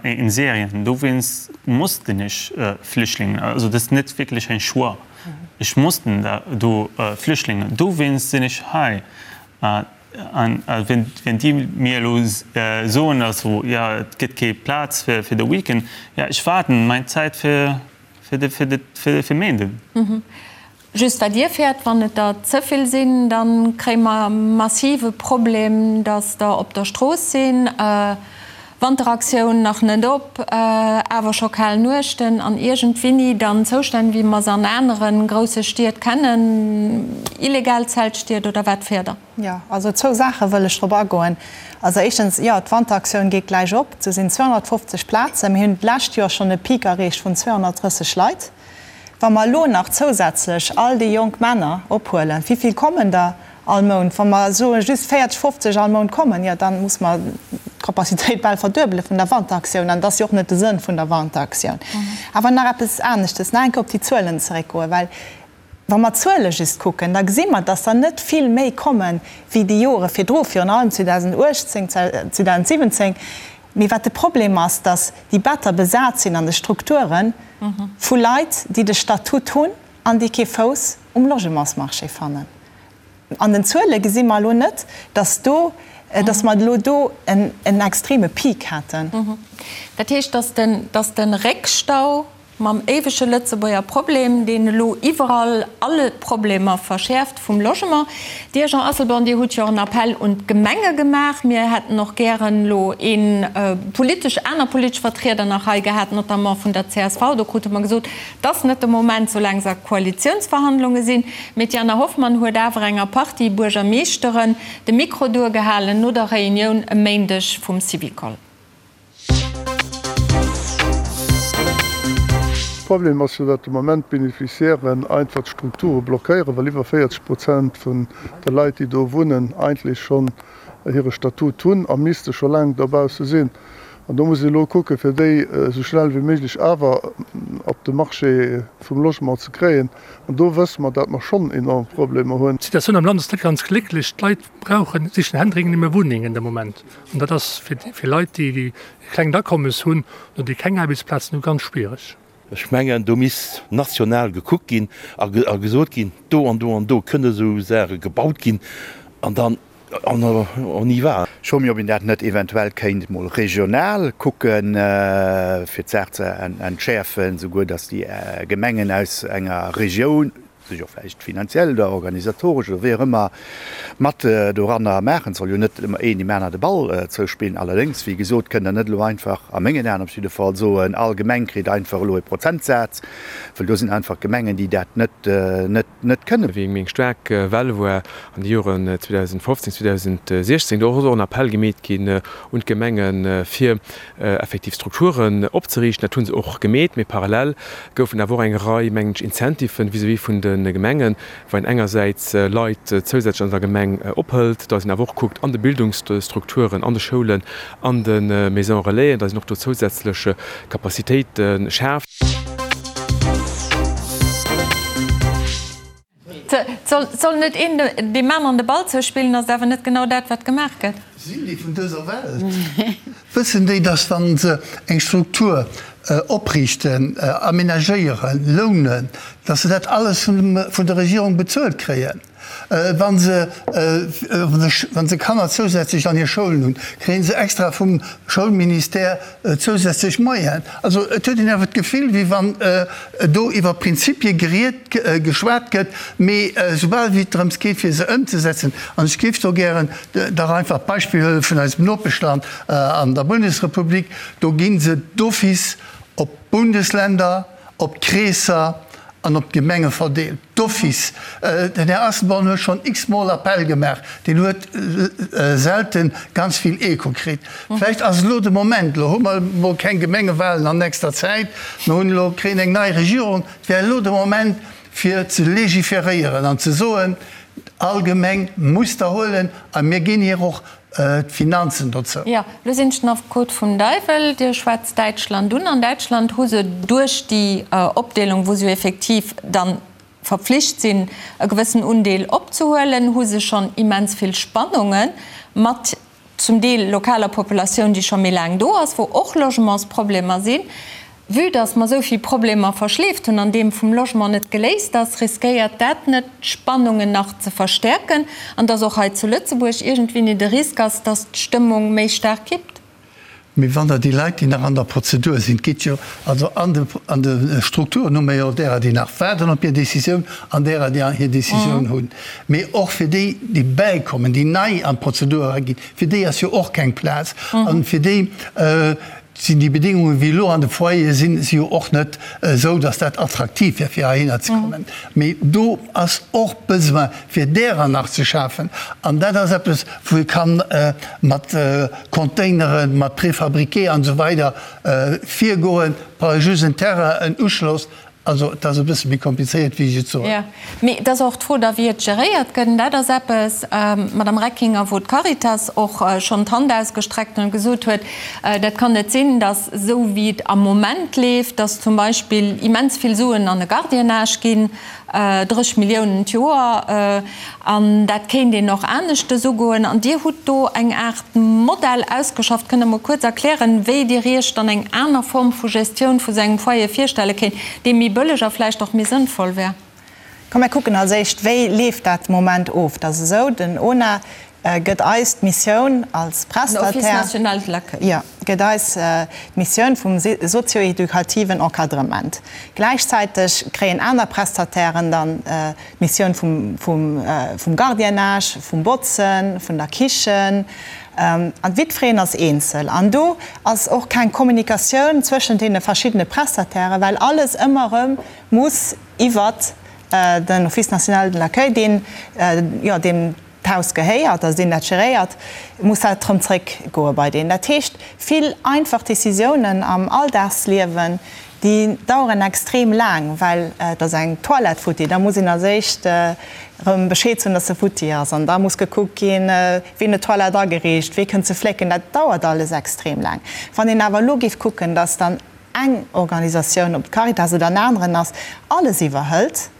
in Syrien, dowéinst mussten ech Flüchtlingen, also dat ass net wierklech en Choix, ech mussten do Flüchtlingen, dowéinst sinn ech hei. An wenn déi mir elo soen, also jo et gëtt kee Plaz fir de Weekend, jo ech waarden meng Zäit fir fir Méinden. Just wat Dir fäert, wann et der ze vill sinn, da kréie mer massive Problem, datt der op der Strooss sinn. Wanteraktioun nach net op, awer scho kal Nuechten an iergendwinni dann Zoustänn wéi mer se an anere grousse Stied kennen, illegal Zeltstied oder wat fäert Der? Jo, also zwou Saache wëll ech drop agoen. Also éischtens, jo, d'Wanteraktioun geet gläich op. Do sinn 250 Plazen. Mir hunn d'lescht Joer schonn e Peak erreecht vun 230 Leit. Wa mer elo nach zousätzlech all déi jonk Männer ophuelen, wéi vill kommen der all Mount? Wa mer soe just 40, 50 all Mount kommen, jo da muss mer d'Capacitéit bal verduebele vun der Wanteraktioun. An dat ass jo och net de Sënn vun der Wanteraktioun. Awer nach eppes aneschtes, nach eng Kéier op déi Zuelen zeréckgoen, well wa mer d'Zuele just kucken, da gesi mer, dass der net vill méi komme wéi déi Jore virdru, virun allem 2018, 2017. Mee wat de Problem ass, dass déi Better besat sinn an de Strukture vu Leit, déi de Statut hunn an déi kee Fouss um Logementsmarché fannen. An den Zuele gesi mer elo net, dass do, dass mer elo do en extreme Peak hätten. Dat heescht, dass den, dass de Réckstau Mam éiwege Lëtzebuerger Problem, deen elo iwwerall alle Problemer verschäerft vum Logement. Dir, Jean Asselborn, Dir hutt jo en Appell un d'Gemenge gemaach. Mir hätten och gären elo ee politesch, aner politesch Vertrieder nach hei gehat, notamment vun der csv. Do krute mer gesot, 't ass net de Moment, soulaang se a Koalitiounsverhandlunge sinn. Mee d'Jana Hoffmann huet awer enger Partie Buergermeeschteren de Mikro duergehalen no der Reunioun e Méindeg vum Syvicol. Problem ass jo, datt de Moment d'Beneficiairen einfach d'Strukture blockéieren, well iwwer 40 Prozent vun de Leit, déi do wunnen, eigentlech schonn hire Statut hunn a misste scho laang dobausse sinn. An do muss ee elo kucken, fir déi esou schnell wéi méiglech awer op de Marché vum Logement ze kréien. An do wësse mer, datt mer schonn enorm Problemer hunn. D'Situatioun am Land ass net ganz glécklech. D'Leit brauchen, sichen händeringend nëmme Wunnengen de Moment. An dat ass fir Leit, déi e klengt Akommes hunn oder déi keng Aarbechtsplazen hunn, ganz schwiereg. Ech mengen, do misst national gekuckt ginn a gesot ginn, do an do an do kënne esou Saache gebaut ginn an dann on y va. Ech froe mech, ob een dat net eventuell kéint mol regional kucken, fir d'Saach ze entschäerfen, souguer datt déi Gemengen aus enger Regioun, sech och vläicht finanziell oder organisatoresch oder wéi och ëmmer mat doranner maachen. Et soll jo net ëmmer een deem aner de Ball zouspillen. Allerdéngs, wéi gesot, kënnt Der net elo einfach, a mengen Aen op jidde Fall, soen, all Gemeng kritt einfach elo e Prozentsaz, well do sinn einfach Gemengen, déi dat net, net, net kënnen. Wéi eng staark Well war an de Joren 2015, 2016, do ass och en Appell gemeet ginn un d'Gemengen, fir effektiv Strukturen opzeriichten. Dat hu se och gemeet, mee parallel goufen awer och eng Rei, mengen ech, Incentiven vis-à-vis vun de Gemengen, wou een engersäits Leit zousätzlech an der Gemeng ophëlt, datt een awer och kuckt an de Bildungsstrukturen, an de Schoulen, an de Maisons Relaisen, datt een och do zousätzlech Capacitéite schaaft. Et soll net een deem aneren de Ball zouspillen, ass et awer net genau dat, wat gemaach gëtt. Sinn déi vun dëser Welt? Wëssen déi, datt wa se eng Struktur opriichten, amenagéieren, lounen, datt se dat alles vun der Regierung bezuelt kréien? Wa se, wa se Kanner zousätzlech an hir Schoulen hunn, kréie se extra vum Schoulministère zousätzlech Moyenen. Also et huet een awer d'Gefill, wéi wann do iwwer Prinzipie geriet, geschwat gëtt, mee soubal wéi et drëms geet, fir se ëmzesetzen, an ech géif do gären dach einfach d'Beispill huele vun eisem Nopeschland an der Bundesrepublik, do gi se d'office op d'Bundesländer, op d'Kreesser an op d'Gemenge verdeelt. D'office. Den Här Asselborn huet schonn x-mol Appell gemaach, deen huet selten ganz vill Echo kritt. Vläicht ass elo de Moment, elo hu mer emol keng Gemengewahlen an nächster Zäit, mer hunn elo, kréien eng nei Regierung, et wär elo de Moment fir ze legiferéieren an ze soen, All Gemeng muss der huelen a mir ginn hir och d'Finanzen dozou. Jo, elo sinn ech den Affekot vum Deiwel. Dir schwätzt Däitschland un. An Däitschland hu se duerch déi Opdeelung, wou se jo effektiv dann verpflicht sinn, e gewëssen Undeel opzehuelen, hu se schonn immens vill Spannunge mat zum Deel lokaler Populatioun, déi scho méi laang do ass, wou och Logementsproblemer sinn. Vue dass mer esou vill Problemer verschleeft hunn an deem vum Logement net geléist ass, riskéiert dat net, d'Spannungen nach ze verstäerken an dass och hei zu Lëtzebuerg iergendwéini de Risk ass, dass d'Stëmmung méi staark kippt? Mee wann Der déi Leit, déi nach an der Prozedur sinn, et geet jo also an de an de Strukturen hu mer jo därer, déi nach waarden op hir Décisioun an därer, déi hir Décisioun hunn. Mee och fir déi, déi bäikommen, déi nei an d'Prozedur eraginn, fir déi ass jo och keng Plaz. An fir déi sinn déi Bedingungen, wéi elo an de Foyere sinn, si jo och net esou, datt dat attraktiv wär, fir heihinner ze kommen. Mee do ass och Besoin, fir därer nach ze schafen. An dat ass eppes, wou ee kann mat Containeren, mat Préfabriqué an esou weider virgoen. Brauch ee just en Terrain, en Uschloss. Also et ass e bësse méi komplizéiert, wéi ech et soen. Jo, mee et ass och d'Fro da, wéi et geréiert gëtt. An dat ass eppes, Madame Reckinger, wou d'Caritas och schonn d'Hand ausgestreckt huet an gesot huet, dat kann net sinn, datt esou wéi et am Moment leeft, datt zum Beispill immens vill Suen an e Gardiennage ginn, 30 Milliounen d'Joer, an dat kéint een och aneschtes ugoen. An Dir hutt do eng Aart Modell ausgeschafft. Kënnt Der mol kuerz erklären, wéi Dir Iech dann eng aner Form vu Gestioun vu sou engem Foyer virstelle kéint, dee méi bëlleg a vläicht och méi sënnvoll wär? Komm mir kucken als éischt, wéi leeft dat de Moment of. Et ass esou, den ONA gëtt eis d'Missioun als Prestataire. Den Office national de l'accueil. Jo, gëtt eis d'Missioun vum sozio-edukativen Encadrement. Gläichzäiteg kréien aner Prestatairen dann d'Missioun vum Gardiennage, vum Botzen, vun der Kichen. An jiddwereen ass eenzel. An do ass och keng Kommunikatioun zwëschent deene verschiddene Prestatairen, well alles ëmmer erëm muss iwwert den Office national de l'accueil, deen, jo, deem d'Haus gehéiert, also deen dat geréiert, muss dat erëm zréckgoe bei deen. Dat heescht, vill einfach Décisiounen am Alldagsliewen, déi daueren extrem laang, well et ass eng Toilette futti, da muss een als éischt erëm Bescheed soen, dass se futti ass, an da muss gekuckt ginn, wien huet d'Toilette ageriicht, wie kënnt se flécken. Dat dauert alles extrem laang. Wann een awer elo géif kucken, dass dann eng Organisatioun, ob d'Caritas oder en aneren ass, alles iwwerhëlt,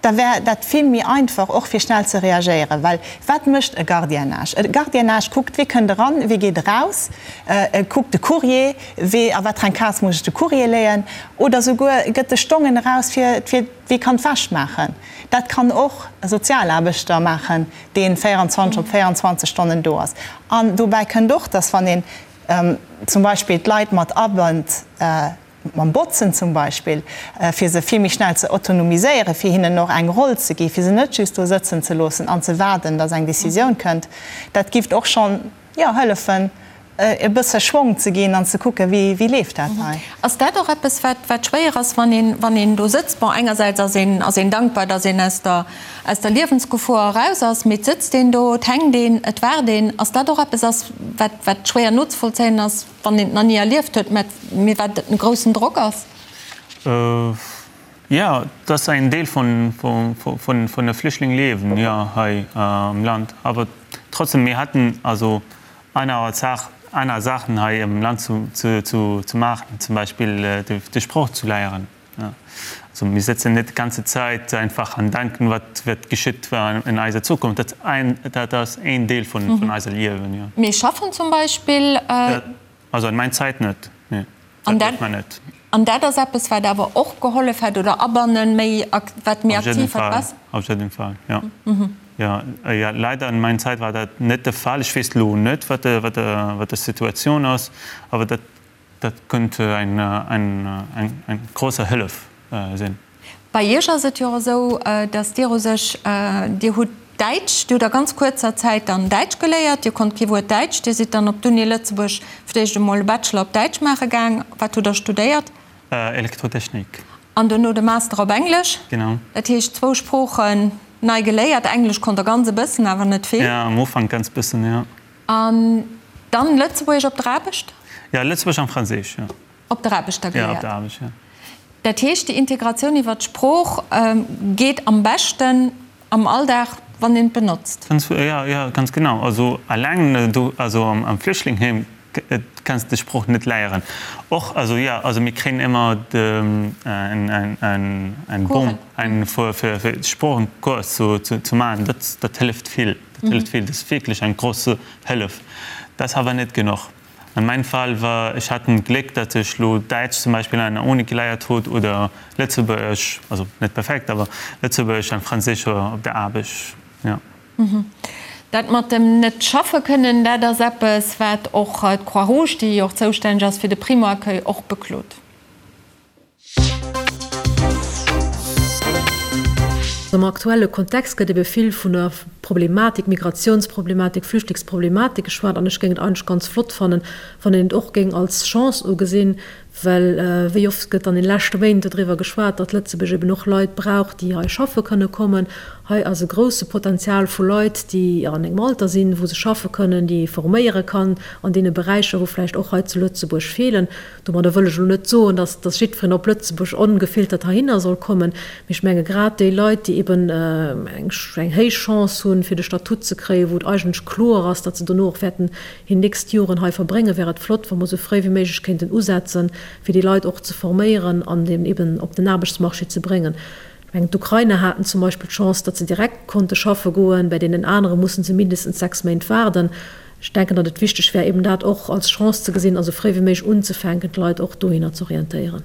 da wär dat vill méi einfach, och fir schnell ze reagéieren. Well wat mécht e Gardiennage? E Gardiennage kuckt, wie kënnt eran, wie geet eraus, e kuckt de Courrier, wee, a wat fir eng Case muss ech de Courrier léien, oder souguer gëtt de Stongen eraus, fir, fir wie kann d'Wäsch maachen. Dat kann och e Sozialaarbechter maachen, dee 24 op 24 Stonnen do ass. An dobäi kënnt och, dass wann een zum Beispill d'Leit mat abënnt, mam Botzen zum Beispill, fir se vill méi schnell ze autonomiséieren, fir hinnen och eng Roll ze gi, fir se net just do sëtzen ze loossen an ze waarden, datt eng Décisioun kënnt, dat gift och schonn, jo, hëllefen, e bësse Schwong ze ginn an ze kucken, wéi, wéi leeft dat hei. Ass dat och eppes, wat, wat schwéier ass, wann een, wann een do sëtzt? Bon, engersäits ass een, ass een dankbar, datt een aus der, aus der Liewensgefor eraus ass, mee et sëtzt een do, et hänkt een, et waart een. Ass dat och eppes ass, wat, wat schwéier nozevollzéien ass? Wann een et nach ni erlieft huet, mä mee wat en groussen Drock ass. Jo, et ass en Deel vun vun de Flüchtlingliewen, jo, hei am Land. Awer trotzdem, mir haten also aner Saach, aner Saachen hei am Land zu zu maachen, zum Beispill de Sproch zu léieren. Also mir sëtzen net d'ganze Zäit einfach an denken, wat wat geschitt in eiser Zukunft. Dat ein, dat ass een Deel vun vun eiser Liewen, jo. Mee schaffen zum Beispill? Also an mein Zäit net, nee, dat dierf mer net. An dat ass eppes, wat awer och gehollef hätt oder abannen, méi wat méi aktiv hätt besser? Auf jeden Fall, jo. Jo, jo, leider an mein Zäit war dat net de Fall. Ech weess lo net, wat de wat de wat de Situatioun ass, awer dat Dat könnte eng eng grosse Hëllef sinn. Bei Iech ass et jo och esou, datt Dir u sech, Dir hutt Däitsch, Dir hutt a ganz kuerzer Zäit dann Däitsch geléiert, Dir konnt kee Wuert Däitsch, Dir sidd dann op d'Uni Lëtzebuerg fir d'éischt emol e Bachelor op Däitsch maache gaang. Wat hutt Der studéiert? Elektrotechnik. An dono de Master op Englesch. Genau. Dat heescht zwou Sproochen nei geléiert. Englesch konnt Der ganz e bëssen, awer net vill. Jo, am Ufank ganz bëssen, jo. An dann Lëtzebuergesch op der Aarbecht? Ja, Lëtzebuergesch an Franséisch, jo. Op der Aarbecht da geléiert? Ja, op der Aarbecht, jo. Dat heescht, déi Integratioun iwwer d'Sprooch geet am beschten am Alldag, wann een et benotzt. Jo, jo, ganz genau. Also alleng do, also am Flüchtlingheem kanns de Sprooch net léieren. Och, also jo, also mir kréien ëmmer en Bon fir fir Sproochenkurs ze maachen. Dat dat hëlleft vill. Dat hëlleft vill. Dat ass wierklech eng grouss Hëllef. Dat ass awer net genuch. An mein Fall war, ech hat en Gléck, dat ech lo Däitsch zum Beispill an der Uni geleiert hutt oder Lëtzebuergesch, also net perfekt, awer Lëtzebuergesch an Franséisch op der Aarbecht, jo. Dat mat dem net schaffe kënnen, dat ass eppes, wat och d'Croix-Rouge, déi jo och zoustänneg ass fir de Primo-Accueil, och beklot. Am aktuelle Kontext gëtt ebe vill vun der Problematik, Migratiounsproblematik, Flüchtlingsproblematik geschwat an ech géing et eigentlech ganz flott fannen, wann een et och géing als Chance ugesinn, well wéi oft gëtt an de leschte Méint dodriwwer geschwat, datt Lëtzebuerg eben och Leit brauch, déi hei schaffe kënne kommen. Hei ass e grousse Potenzial vu Leit, déi an engem Alter sinn, wou se schaffe kënnen, déi ee forméiere kann an deene Beräicher, wou vläicht och hei zu Lëtzebuerg feelen. Domadder wëll ech elo net soen, dass dass jiddwereen op Lëtzebuerg ongefiltert heihinner soll kommen, mee ech menge grad déi Leit, déi eben eng eng héich Chance hunn, fir de Statut ze kréien, wou et eigentlech kloer ass, datt se dono och wäerten hir nächst Joren hei verbréngen, wär et flott, wa mer esou fréi wéi méiglech kéinten usetzen, fir déi Leit och ze forméieren an eben op den Aarbechtsmarché ze bréngen. Ech mengen, d'Ukrainer haten zum Beispill d'Chance, datt se direkt konnte schaffe goen, bei deenen anere musse se mindestens 6 Méint waarden. Ech denken, datt et wichteg wär, eben dat och als Chance ze gesinn a sou fréi wéi méiglech unzefänken, d'Leit och dohinner ze orientéieren.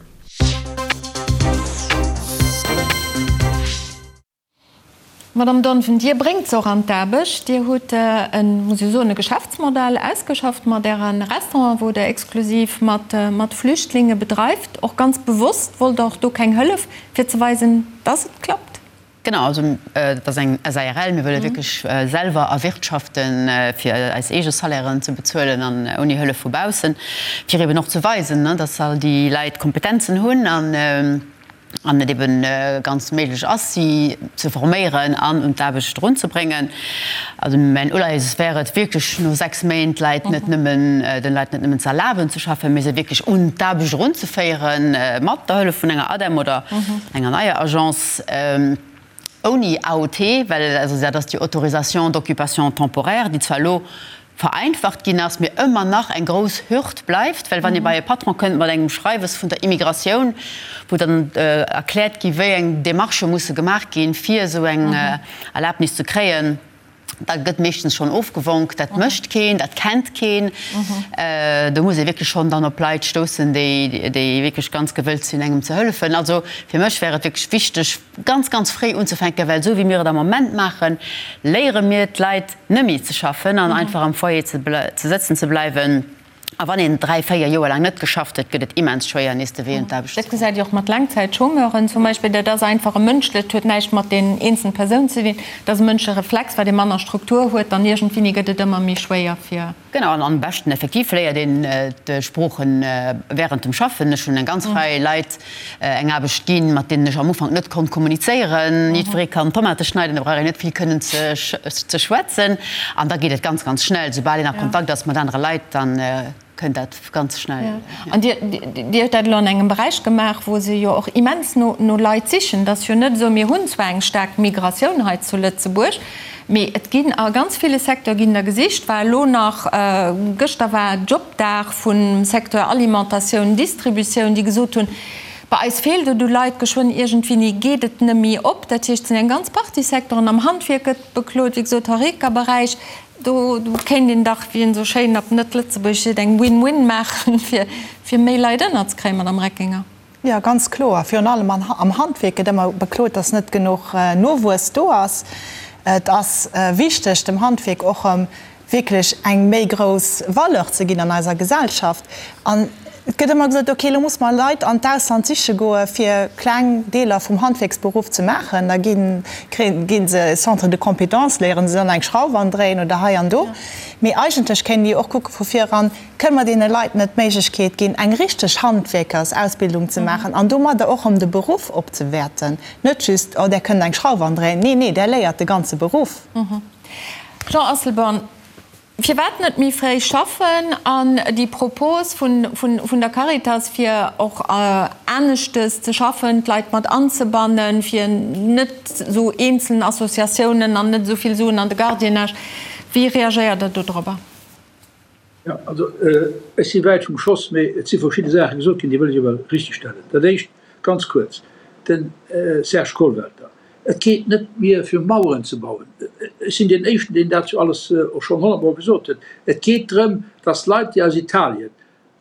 Madame Donven, Dir bréngt se och an d'Aarbecht. Dir hutt en, muss ech soen, e Geschäftsmodell ausgeschafft mat Äre Restauranten, wou Der exklusiv mat Flüchtlinge bedreift. Och ganz bewosst wollt Der och do keng Hëllef, fir ze weisen, dass et klappt. Genau, also et ass eng SARL. Mir wëlle wierklech selwer erwirtschaften, fir eis eege Salairen ze bezuelen an ouni Hëllef vu baussen, fir eben och ze weisen, dass all déi Leit Kompetenzen hunn an an et eben ganz méiglech ass, si ze forméieren an un d'Aarbecht erunzebréngen. Also mäin Uleies wär et wierklech no 6 Méint d'Leit net nëmmen, den Leit net nëmmen ze erlaben ze schaffen, mee se wierklech un d'Aarbecht erunzeféieren, mat der Hëllef vun enger ADEM oder enger neier Agence, ouni AOT, well also dat ass déi Autorisation d'occupation temporaire, déi zwar elo vereinfacht ginn ass, mee ëmmer nach eng grouss Hürd bleift, well wann ee bei e Patron kënnt mat engem Schreiwes vun der Immigratioun, wou dann erkläert gi wéi eng Demarchë musse gemaach ginn, fir esou eng Erlaabnis ze kréien, da gëtt meeschtens schonn ofgewonk. Dat mécht keen, dat kennt keen. Do muss ee wierklech schonn dann op Leit stoussen, déi wierklech ganz gewëllt sinn, engem ze hëllefen. Also fir mech wär et wierklech wichteg, ganz, ganz fréi unzefänken, well esou wéi mir et am Moment maachen, léiere mir d'Leit nëmme ze schaffen an einfach am Foyer ze sëtzen ze bleiwen. A wann een 3, 4 Joer laang net geschafft huet, gëtt et immens schwéier, nees de Wee un d'Aarbecht ze Dat gesäit Dir och mat Laangzäitchômeuren zum Beispill. Dat ass einfach e mënschlecht, huet näischt mat den eenzelen Persounen ze dinn. Dat ass e mënschleche Reflex, wat ee manner Struktur huet, dann iergendwéini gëtt et ëmmer méi schwéier fir. Genau, an am beschten effektiv léiert een d'Sproochen während dem Schaffen. Ech hunn eng ganz Rei Leit eng Aarbecht ginn, mat deenen ech am Ufank net konnt kommunizéieren. Jiddweree kann Tomate schneiden, da brauch een net vill kënnen ze schwätzen. An da geet et ganz, ganz schnell. Soubal een a Kontakt ass mat anere Leit, da kënnt dat ganz schnell. An Dir, Dir hutt dat elo an engem Beräich gemaach, wou se jo och immens no Leit sichen. Et ass jo net esou, mir hunn zwar eng staark Migratioun hei zu Lëtzebuerg, mee et ginn a ganz ville Secteure ginn der gesicht. War elo nach, gëschter war Jobdag vum Secteur Alimentatioun, Distributioun, déi gesot hunn, bei eis feelt et u Leit, geschwënn iergendwéini geet et nëmmi op. Dat heescht, et sinn eng ganz Partie Secteuren, am Handwierk gëtt beklot, wéi gesot, Horeca-Beräich. Do kéint een dach, wéi een esou schéin op Net-Lëtzebuergesch seet, eng Win-Win maachen, fir méi Leit ënnerzekréien, Madame Reckinger. Jo, ganz kloer. Virun allem am Handwierk gëtt ëmmer beklot, dass net genuch Nowuess do ass. Et ass wichteg, dem Handwierk och erëm wierklech eng méi grouss Valeur ze ginn an eiser Gesellschaft. An et gëtt ëmmer gesot, okay, elo muss mer Leit an d'Ausland siche goe fir kleng Deeler vum Handwierksberuff ze maachen. Da ginn, gi se Centre de compétences, léiere se dann eng Schrauf andréien oder hei an do. Mee eigentlech kéinte mir jo och kucke vu vir eran, Kënne mer deene Leit net d'Méiglechkeet ginn, eng richteg Handwierkersausbildung ze maachen an domadder och erëm de Beruff opzewäerten? Net just, oh, där kënnt eng Schrauf andréien. Nee, nee, där léiert de ganze Beruff. Jean Asselborn, Firwat net méi fréi schaffen? An déi Propos vun der Caritas, fir och aneschtes ze schaffen, d'Leit mat anzebannen, fir net esou eenzeln Associatiounen an net esou vill Suen an de Gardiennage, wéi reagéiert Der dodrobber? Jo, also ech si wäit vum Schoss, mee et si verschidde Saache gesot ginn, déi wëll ech awer richtegstellen. Dat Éischt, ganz kuerz, de Serge Kollwelter, Et geet net mir fir Maueren ze bauen. Ech sinn deen Éischten, deen dat jo alles och schonn honnertmol gesot huet. Et geet drëm, datt Leit, déi aus Italien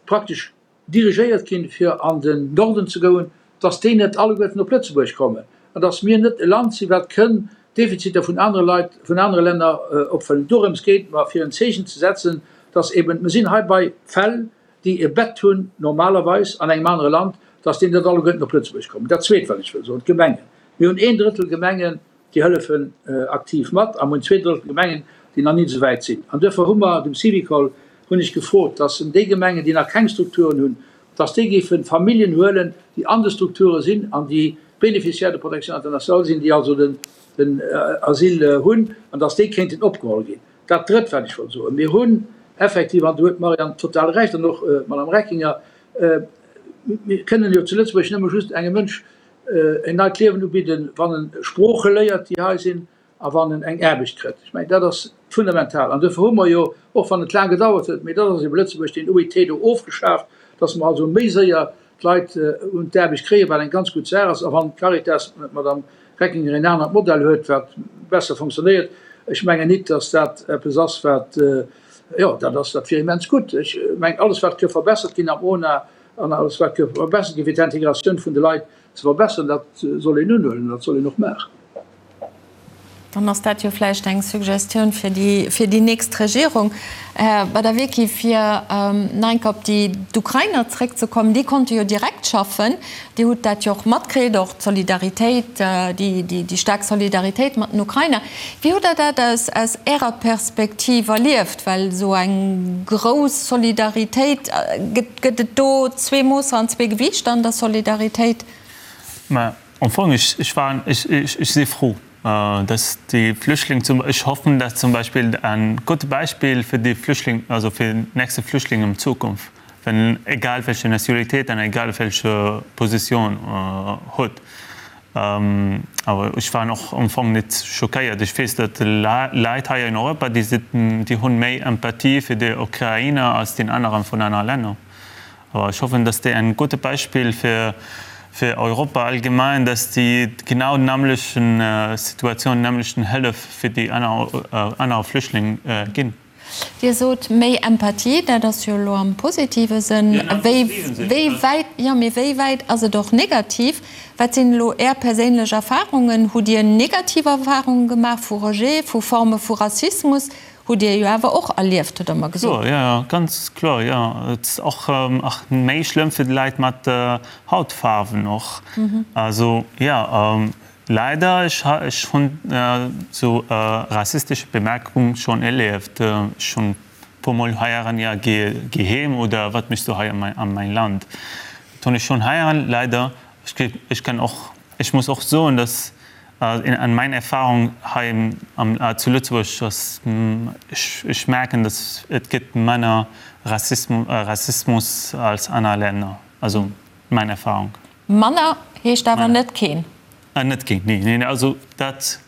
praktesch dirigéiert ginn, fir an den Norden ze goen, datt déi net alleguerten op Lëtzebuerg kommen an datt mir net e Land sinn, wat kënn Defiziter vun anere Leit, vun anere Länner opfëllen. Dorëms geet et mer, fir en Zeechen ze setzen, datt eben, mer sinn hei bei Fäll, déi e Bett hunn normalerweis an engem anere Land, dass déi net alleguerten op Lëtzebuerg kommen. Dat Zweet, wat ech wëll soen, d'Gemengen. Mir hunn een Drëttel Gemengen, déi hëllefen aktiv mat, a mir hunn 2/3 Gemengen, déi nach nit esou wäit sinn. An duerfir hu mer dem Syvicol, hunn ech gefrot, dass en déi Gemengen, déi nach keng Strukturen hunn, dass déi géife Familljen huelen, déi an de Strukture sinn an déi Bénéficiaires de protection internationale sinn, déi also den Asyl hunn, an dass déi kéinten opgeholl ginn. Dat Drëtt, wat ech wollt soen, Mir hunn effektiv, an do huet d'Marianne total Recht an och d'Madame Reckinger, mir kënnen jo zu Lëtzebuerg nëmme just engem Mënsch en neit Liewen ubidden, wann en Sprooche léiert, déi hei sinn, a wann en eng Aarbecht kritt. Ech mengen, dat ass fundamental. An duerfir hu mer jo, och wann et laang gedauert huet, mee dat ass ebe Lëtzebuerg, deen OIT do ofgeschaaft, dass mer also méi séier d'Leit un d'Aarbecht kréien, wat eng ganz gutt Saach ass. A wann d'Caritas, d'Madame Reckinger, een anert Modell huet, wat besser funktionéiert, ech mengen nit, datt dat eppes ass, wat, jo, dat ass, dat wier immens gutt. Ech mengen, alles wat ka verbessert ginn am ONA an alles wat ka verbessert ginn, fir d'Integratioun vun de Leit ze verbesseren, dat soll een unhuelen, dat soll een och maachen. Dann ass dat jo vläicht eng Suggestioun fir déi, fir déi nächst Regierung. Här Badawiecki, fir nach eng Kéier op déi, d'Ukrainer zréckzekommen, déi konnte jo direkt schaffen. Dir hutt dat jo och matkritt, och d'Solidaritéit, déi, déi, déi staark Solidaritéit mat den Ukrainer. Wéi hutt Der dat aus, aus Ärer Perspektiv erlieft? Well esou eng grouss Solidaritéit, gëtt, gëtt et do zwee Moosser an zwee Gewiichter an der Solidaritéit? Mä Am Fong, ech, ech war, ech, ech, ech si frou, dass déi Flüchtling zum, ech hoffen, dass zum Beispill en gutt Beispill fir déi Flüchtling, also fir nächste Flüchtlinge an Zukunft, wenn egal welche Nationalitéit an egal welche Position huet. Awer ech war och am Fong net schockéiert. Ech weess, datt Leit hei in Europa, déi sinn, déi hunn méi Empathie fir déi Ukrainer als déi aneren vun aner Länner. Awer ech hoffen, dass déi en gute Beispill fir fir Europa allgemein, dass déi genau nämlechen Situation, nämlechen Hëllef fir déi aner aner Flüchtling ginn. Dir sot méi Empathie, dat ass jo elo am positive Sënn. Wéi wéi wäit, jo, mee wéi wäit ass et och negativ? Wat sinn elo Är perséinlech Erfahrungen? Hutt Dir negativ Erfahrungen gemaach vu Rejet, vu Forme vu Rassismus? Hutt Dir jo awer och erlieft, hutt Der mer gesot. Kloer, jo, jo, ganz kloer, jo. Et ass och ach méi schlëmm fir d'Leit mat Hautfaarwen och. Also, jo, leider, ech ech hunn sou rassistesche Bemerkung schonn erlieft. Ech hunn puer mol heieren, jo, geh geh heem oder wat méchs du hei an an mäin Land? Dat hunn ech schonn heieren, leider. Ech ech kann och, ech muss och soen, dass An mein Erfahrung hei zu Lëtzebuerg ass, ech merken, dass et gëtt manner Rassismus als aner Länner. Also mein Erfahrung. Manner heescht awer net keen. Net keen, nee, nee, also dat,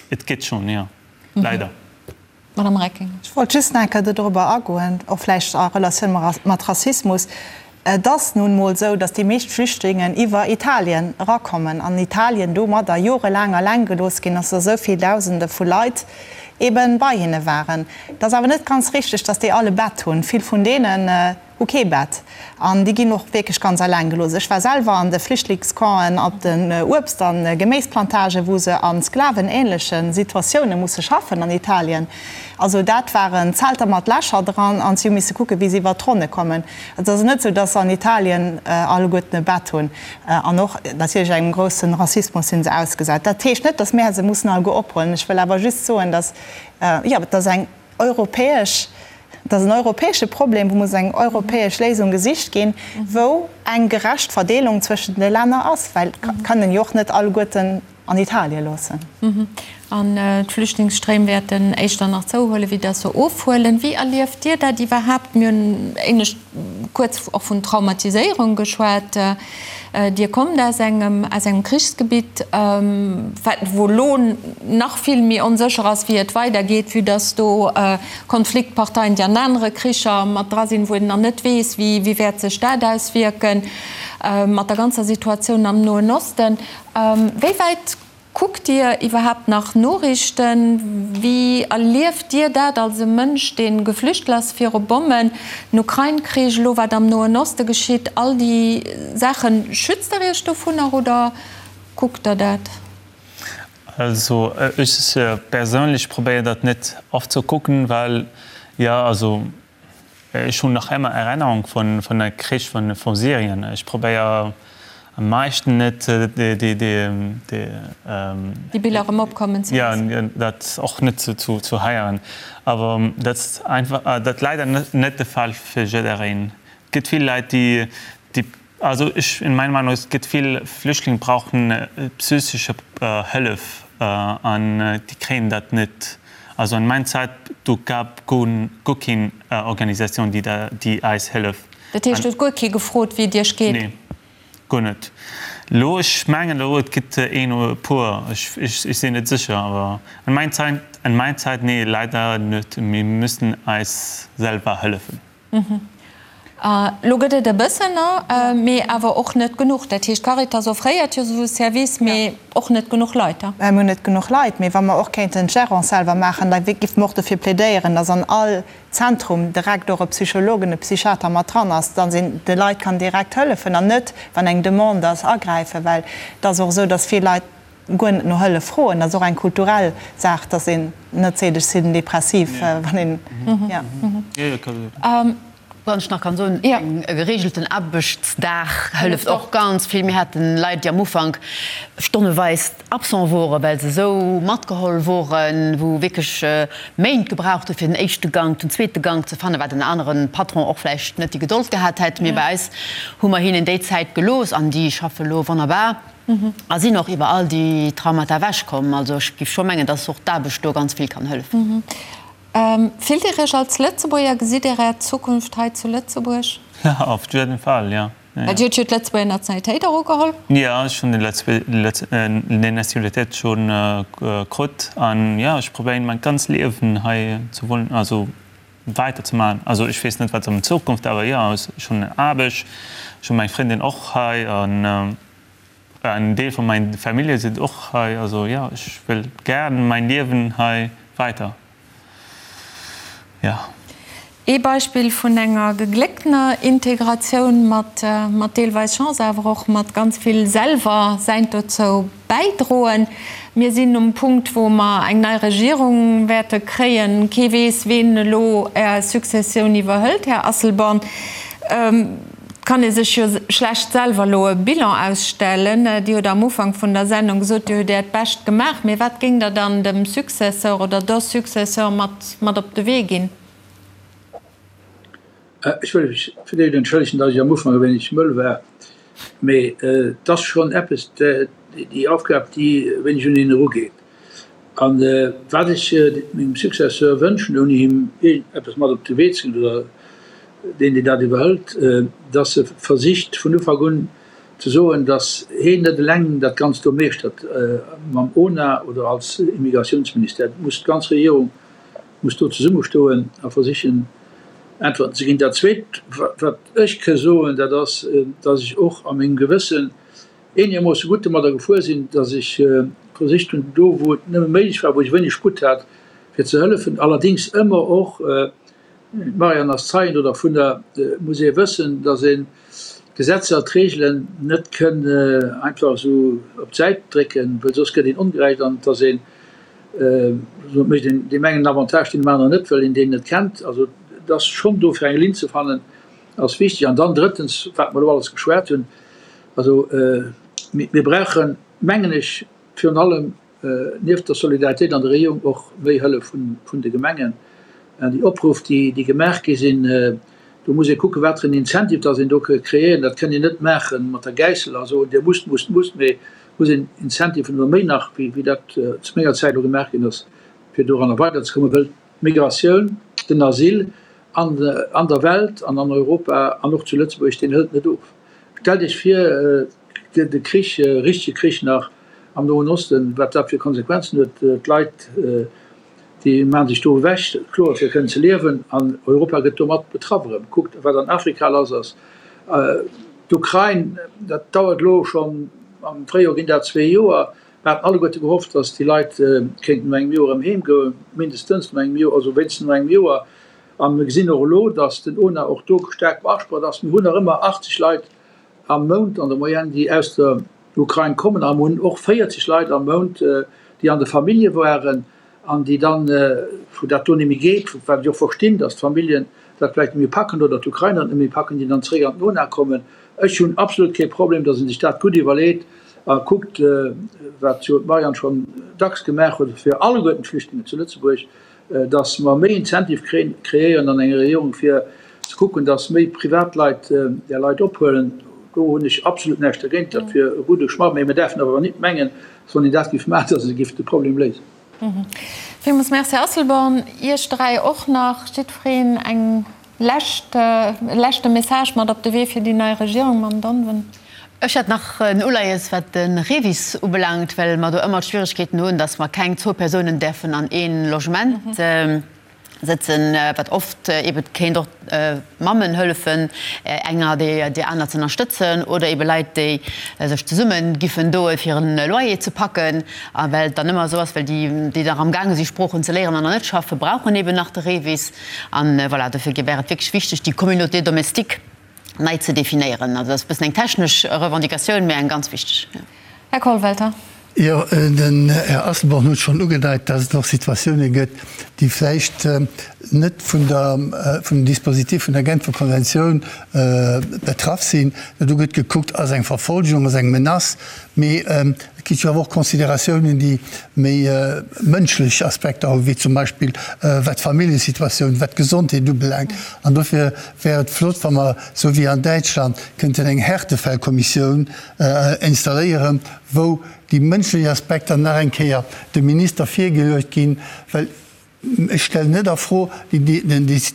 et gëtt schonn, jo, leider. Madame Reckinger. Ech wollt just nach eng Kéier dodrobber agoen, och vläicht a Relatioun mat Rassismus. Et ass nun emol esou, datt déi meescht Flüchtlingen iwwer Italien erakommen an Italien domadder jorelaang alleng gelooss ginn ass, datt esou vill Dausende vu Leit ebe bei hinne waren. Et ass awer net ganz richteg, datt déi all e Bett hunn. Vill vun deenen hu kee Bett an déi ginn och wierklech ganz alleng gelooss. Ech war selwer an de Flüchtlingscampen op den Uebst a Geméisplantagen, wou se a sklavenähnleche Situatioune musse schaffen an Italien. Also dat waren Zelter mat Lächer dran an si hu misse kucken, wéi se iwwert d'Ronne kommen. Et ass net esou, dass se an Italien alleguerten e Bett hunn. An och natierlech engem grousse Rassismus si se ausgesat. Dat heescht net, dass mär se mussen alleguer ophuelen. Ech wëll awer just soen, dass, jo, dass eng europäesch, dat ass en europäesche Problem, wou muss eng europäesch Léisung gesicht ginn, wou eng gerecht Verdeelung zwëschent de Länner ass, well et kënnen jo och net alleguerten. an Italie loossen. An d'Flüchtlingsstréim wäerten éischter nach zouhuelen, wéi dass se ofhuelen. Wéi erlieft Dir dat iwwerhaapt? Mir hunn éinescht kuerz och vun Traumatiséierung geschwat. Dir kommt aus engem, aus engem Krichsgebitt, wat, wou elo nach vill méi onsécher ass, wéi et weidergeet, vue dass do Konfliktparteien, déi an anere Kricher mat dra sinn, wou een nach net weess, wéi, wéi wäert sech dat auswierken, mat der ganzer Situatioun am Noen Osten. Wéi wäit kuckt Dir iwwerhaapt nach Noriichten? Wéi erlieft Dir dat als e Mënsch, dee geflüchtelt ass viru Bommen, den Ukrain-Krich, elo wat am Noen Oste geschitt, all déi Saachen? Schützt Der Iech dovunner oder kuckt Der dat? Also ech perséinlech probéier dat net oft ze kucken, well jo also Ech hunn nach emmer Erennerung vun vun der Krich vun vun Syrien. Ech probéier am meischten net déi déi déi. Déi Biller erëm opkommen ze loossen. Jo, dat och net ze zu heieren. Awer dat ass einfach dat leider net de Fall fir jiddereen. Et gëtt vill Leit déi déi Also ech, in meiner Meinung, es gëtt vill Flüchtlinge brauchen psychische Hëllef an déi kréien dat net. Also an mein Zäit do gab guer keen Organisatioun déi da déi eis hëllef. Dat heescht huet guer kee gefrot wéi et iech geet? Nee, guer net. Lo ech mengen elo et gëtt een oder e puer, ech ech sinn net sécher, awer an mein Zäit an mein Zäit nee leider net. Mir müssen eis selwer hëllefen. Elo gëtt et e bëssen, mee awer och net genuch. Dat heescht, d'Caritas offréiert jo esou e Service, mee och net genuch Leit. Mir hunn net genuch Leit, mee wa mer och kéinten d'Gérance selwer maachen, da géife mer och dofir plädéieren, dass an all Zentrum direkt och e Psychologen, e Psychiater mat dran ass, dass een de Leit kann direkt hëllefen an net, wann eng Demande ass, agräifen. Well et ass och esou, dass vill Leit guer net no Hëllef froen. Dat ass och eng kulturell Saach, dass een net seet, ech sinn depressiv, wann een, jo. Wann ech nach kann soen, e geregelten Aarbechtsdag hëlleft och ganz vill. Mir haten Leit, déi am Ufank stonneweis absent woren, well se esou matgeholl woren, wou wierklech Méint gebraucht hu fir den éischte Gank, den zweete Gank ze fannen, wat en anere Patron och vläicht net déi Gedold gehat hätt. Mee bei eis hu mer hinnen déi Zäit gelooss an déi schaffe lo wonnerbar. A sinn och iwwer all déi Traumata ewech komm. Also ech géif scho mengen, dass och d'Aarbecht do ganz vill kann hëllefen. Fillt Dir Iech als Lëtzebuerger? Gesitt Dir Är Zukunft hei zu Lëtzebuerg? Auf jeden Fall, ja. Well Dir hutt jo d'Lëtzebuerger Nationalitéit och ugeholl. Jo, ech hunn déi Nationalitéit schonn krut an jo, ech probéieren mäin ganz Liewen hei ze wunnen, also weider ze maachen. Also ech weess net wat an Zukunft, awer jo, ech hunn Aarbecht, ech hunn meng Frëndin och hei an En Deel vun mein Famillje sinn och hei, also jo, ech wëll gären mein Liewen hei weider, jo. Ee Beispill vun enger geglécktener Integratioun mat mat deelweis Chance, awer och mat ganz vill selwer säint dozou bäidroen. Mir sinn um Punkt, wou mer eng nei Regierung wäerte kréien. Kee weess, ween elo Är Successioun iwwerhëlt, Här Asselborn. Et kann ee sech jo schlecht selwer elo e Bilan ausstellen. Dir hutt am Ufank vun der Sendung gesot, Dir hutt Äert Bescht gemaach. Mee wat géingt Der dann dem Successeur oder der Successeur mat mat op de Wee ginn? Ech wëll mech fir d'éischt entschëllegen, datt ech am Ufank e wéineg mëll war. Mee et ass schonn eppes, déi Aufgab, déi e wéineg un een erugeet. A wat ech mengem Successeur wënschen, ouni him iergendeppes mat op de Wee ze ginn, oder deen, deen dat iwwerhëlt, datt e versicht vun Ufank un ze soen, datt heen net eleng dat Ganzt do meeschtert mam ONA oder als Immigratiounsministère. Et muss d'ganz Regierung muss do zesummestoen a versichen Äntwerten ze ginn. Dat Zweet, wat ech ke soen, dat ass, datt ech och a mengem Gewëssen eenegermoosse gutt domadder gefuer sinn, datt ech versicht hunn, do wou et nëmme méiglech war, wou ech wéineg Sputt hat, fir ze hëllefen, allerdéngs ëmmer och, d'Marianne ass Zeien do dervunner, muss ee wëssen, datt een d'Gesetzer, d'Reegelen net kënn einfach esou op d'Säit drécken, well soss gëtt een ongerecht an et ass een, mécht een deem engen en Avantage, deen dem aneren net, well een deen net kennt. Also et ass schonn do fir eng Linn ze fannen, ass wichteg. An dann drëttens, wat mer elo alles geschwat hunn, also mir brauchen, mengen ech, virun allem nieft der Solidaritéit an der Regierung och méi Hëllef vun de Gemengen. An déi Opruff, déi gemaach gi sinn, do muss ee kucken, wat fir en Incentive dass een do ka kreéieren. Dat kënnt een net maache mat der Gäissel a soen, Dir musst, musst, musst, mee. Muss een Incentiven oder méi nach, wéi dat zu menger Zäit elo gemaach ginn ass, fir doranner weiderzekommen, wëll d'Migratioun, den Asyl an der Welt an an Europa an och zu Lëtzebuerg, deen hëlt net of. Stellt Iech vir, et gëtt e Krich, e richtege Krich nach am Noen Osten, wat dat fir Konsequenzen huet. D'Leit, déi maache sech do ewech, kloer, fir kënnen ze liewen, an Europa gëtt domat betraff erëm. Kuckt, wat an Afrika lass ass. D'Ukrain, dat dauert elo schonn, am Fréijoer ginn dat zwee Joer. Mir haten alleguerte gehofft, datt déi Leit kéinten no engem Joer erëm heem goen, mindestens no engem Joer, also wéinstens no engem Joer. A mir gesinn och elo, datt den ona och do staark beasprocht ass. Mir hunn nach ëmmer 80 Leit am Mount an der Moyenne, déi aus der Ukrain kommen. A mir hunn och 40 Leit am Mount, déi an de Famillje waren an déi dann, wou dat do net méi geet, wat ech och verstinn, datt d'Familljen dat vläicht net méi packen oder d'Ukrainer et net méi packen, déi dann zeréck an d'Nona kommen. Ech hunn absolut kee Problem, datt ee sech dat gutt iwwerleet a kuckt, wat jo d'Marianne schonn dacks gemaach huet, fir alleguerten d'Flüchtlingen zu Lëtzebuerg dass mer méi Incentive kreéieren an enger Regierung, fir ze kucken, dass méi Privatleit där Leit ophuelen. Do hunn ech absolut näischt dergéint. Dat wier e gudde Schmatt. Mä mir däerfen awer nit mengen, dass wann een dat géif maachen, dass e géif de Problem léisen. Villmools Merci, Här Asselborn. Iech dräi och nach jiddwereen eng Lescht, e leschte Message mat op de Wee fir déi nei Regierung, Mme Donven. Ech hätt nach en Uleies, wat de REVIS ubelaangt, well mer do ëmmer d'Schwierigkeeten hunn, dass mer keng zwou Persounen däerfen an ee Logement sëtzen, wat oft ebe kéint och Mammen hëllefen, enger déi aner ze ënnerstëtzen oder ebe Leit, déi sech zesumme giffen doen, fir e Loyer ze packen. A well et dann ëmmer esou ass, well déi, déi nach amgaange si Sproochen ze léieren an nach net schaffen, brauchen eben nach de REVIS. An voilà, dofir wär et wierklech wichteg, déi Communauté domestique nei ze definéieren. Also dat ass e bëssen eng technesch Revendicatioun, mä eng ganz wichteg. Här Kollwelter. Jo, den Här Asselborn huet schonn ugedeit, dass et och Situatioune gëtt, déi vläicht net vun der, vun dem Dispositif vun der Genfer Konventioun betraff sinn. Do gëtt gekuckt, ass eng Verfolgung, ass eng Menace, mee Et gi jo awer och Consideratiounen, déi méi mënschlech Aspekter hunn, wéi zum Beispill wat d'Familljesituatioun, wat d'Gesondheet ubelaangt. An dofir wär et flott, wa mer, esou wéi an Däitschland, kënnten eng Härtefällkommissioun installéieren, wou déi mënschlech Aspekter nach eng Kéier dem Minister virgeluecht ginn, well Ech stellen net a Fro déi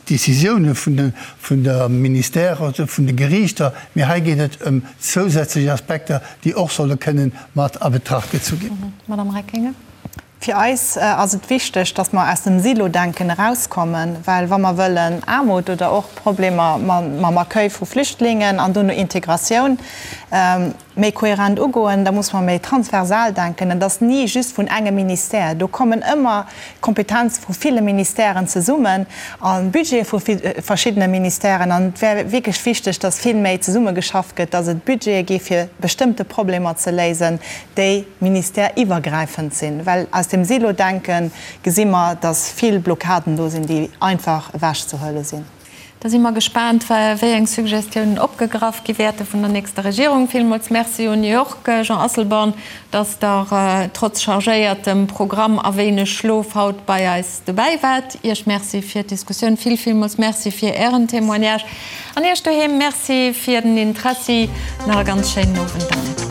Décisioune vun der Ministère oder vun de Geriichter, mee hei geet et ëm zousätzlech Aspekter, déi och solle kënnen mat a Betracht gezu ginn. Madame Reckinger. Fir eis ass et wichteg, datt mer aus dem Silo-Denken erauskommen, well wa mer wëllen Aarmut oder och Problemer mam Accueil vu Flüchtlingen an dono Integratioun, méi kohärent ugoen, da muss mer méi transversal denken. Et ass ni just vun engem Ministère. Do kommen ëmmer Kompetenze vu ville Ministèren zesummen a Budgete vu verschiddene Ministèren. An et wär wierklech wichteg, dass vill méi zesummegeschafft gëtt, dass et Budgete gi fir bestëmmte Problemer ze léisen, déi ministèreiwwergräifend sinn. Well aus dem Silo-Denke gesi mer, dass vill Blockaden do sinn, déi einfach ewechzehuele sinn. Da si mer gespaant, wéi eng Suggestiounen opgegraff gi wäerte vun der nächster Regierung. Villmools Merci un Iech, Jean Asselborn, dass Der trotz chargéiertem Programm a wéineg Schlof haut bei eis dobäi waart. Iech Merci fir d'Diskussioun. Vill, villmools Merci fir Ären Témoignage. An Iech doheem Merci fir den Interessi. Nach e ganz schéinen Owend dann.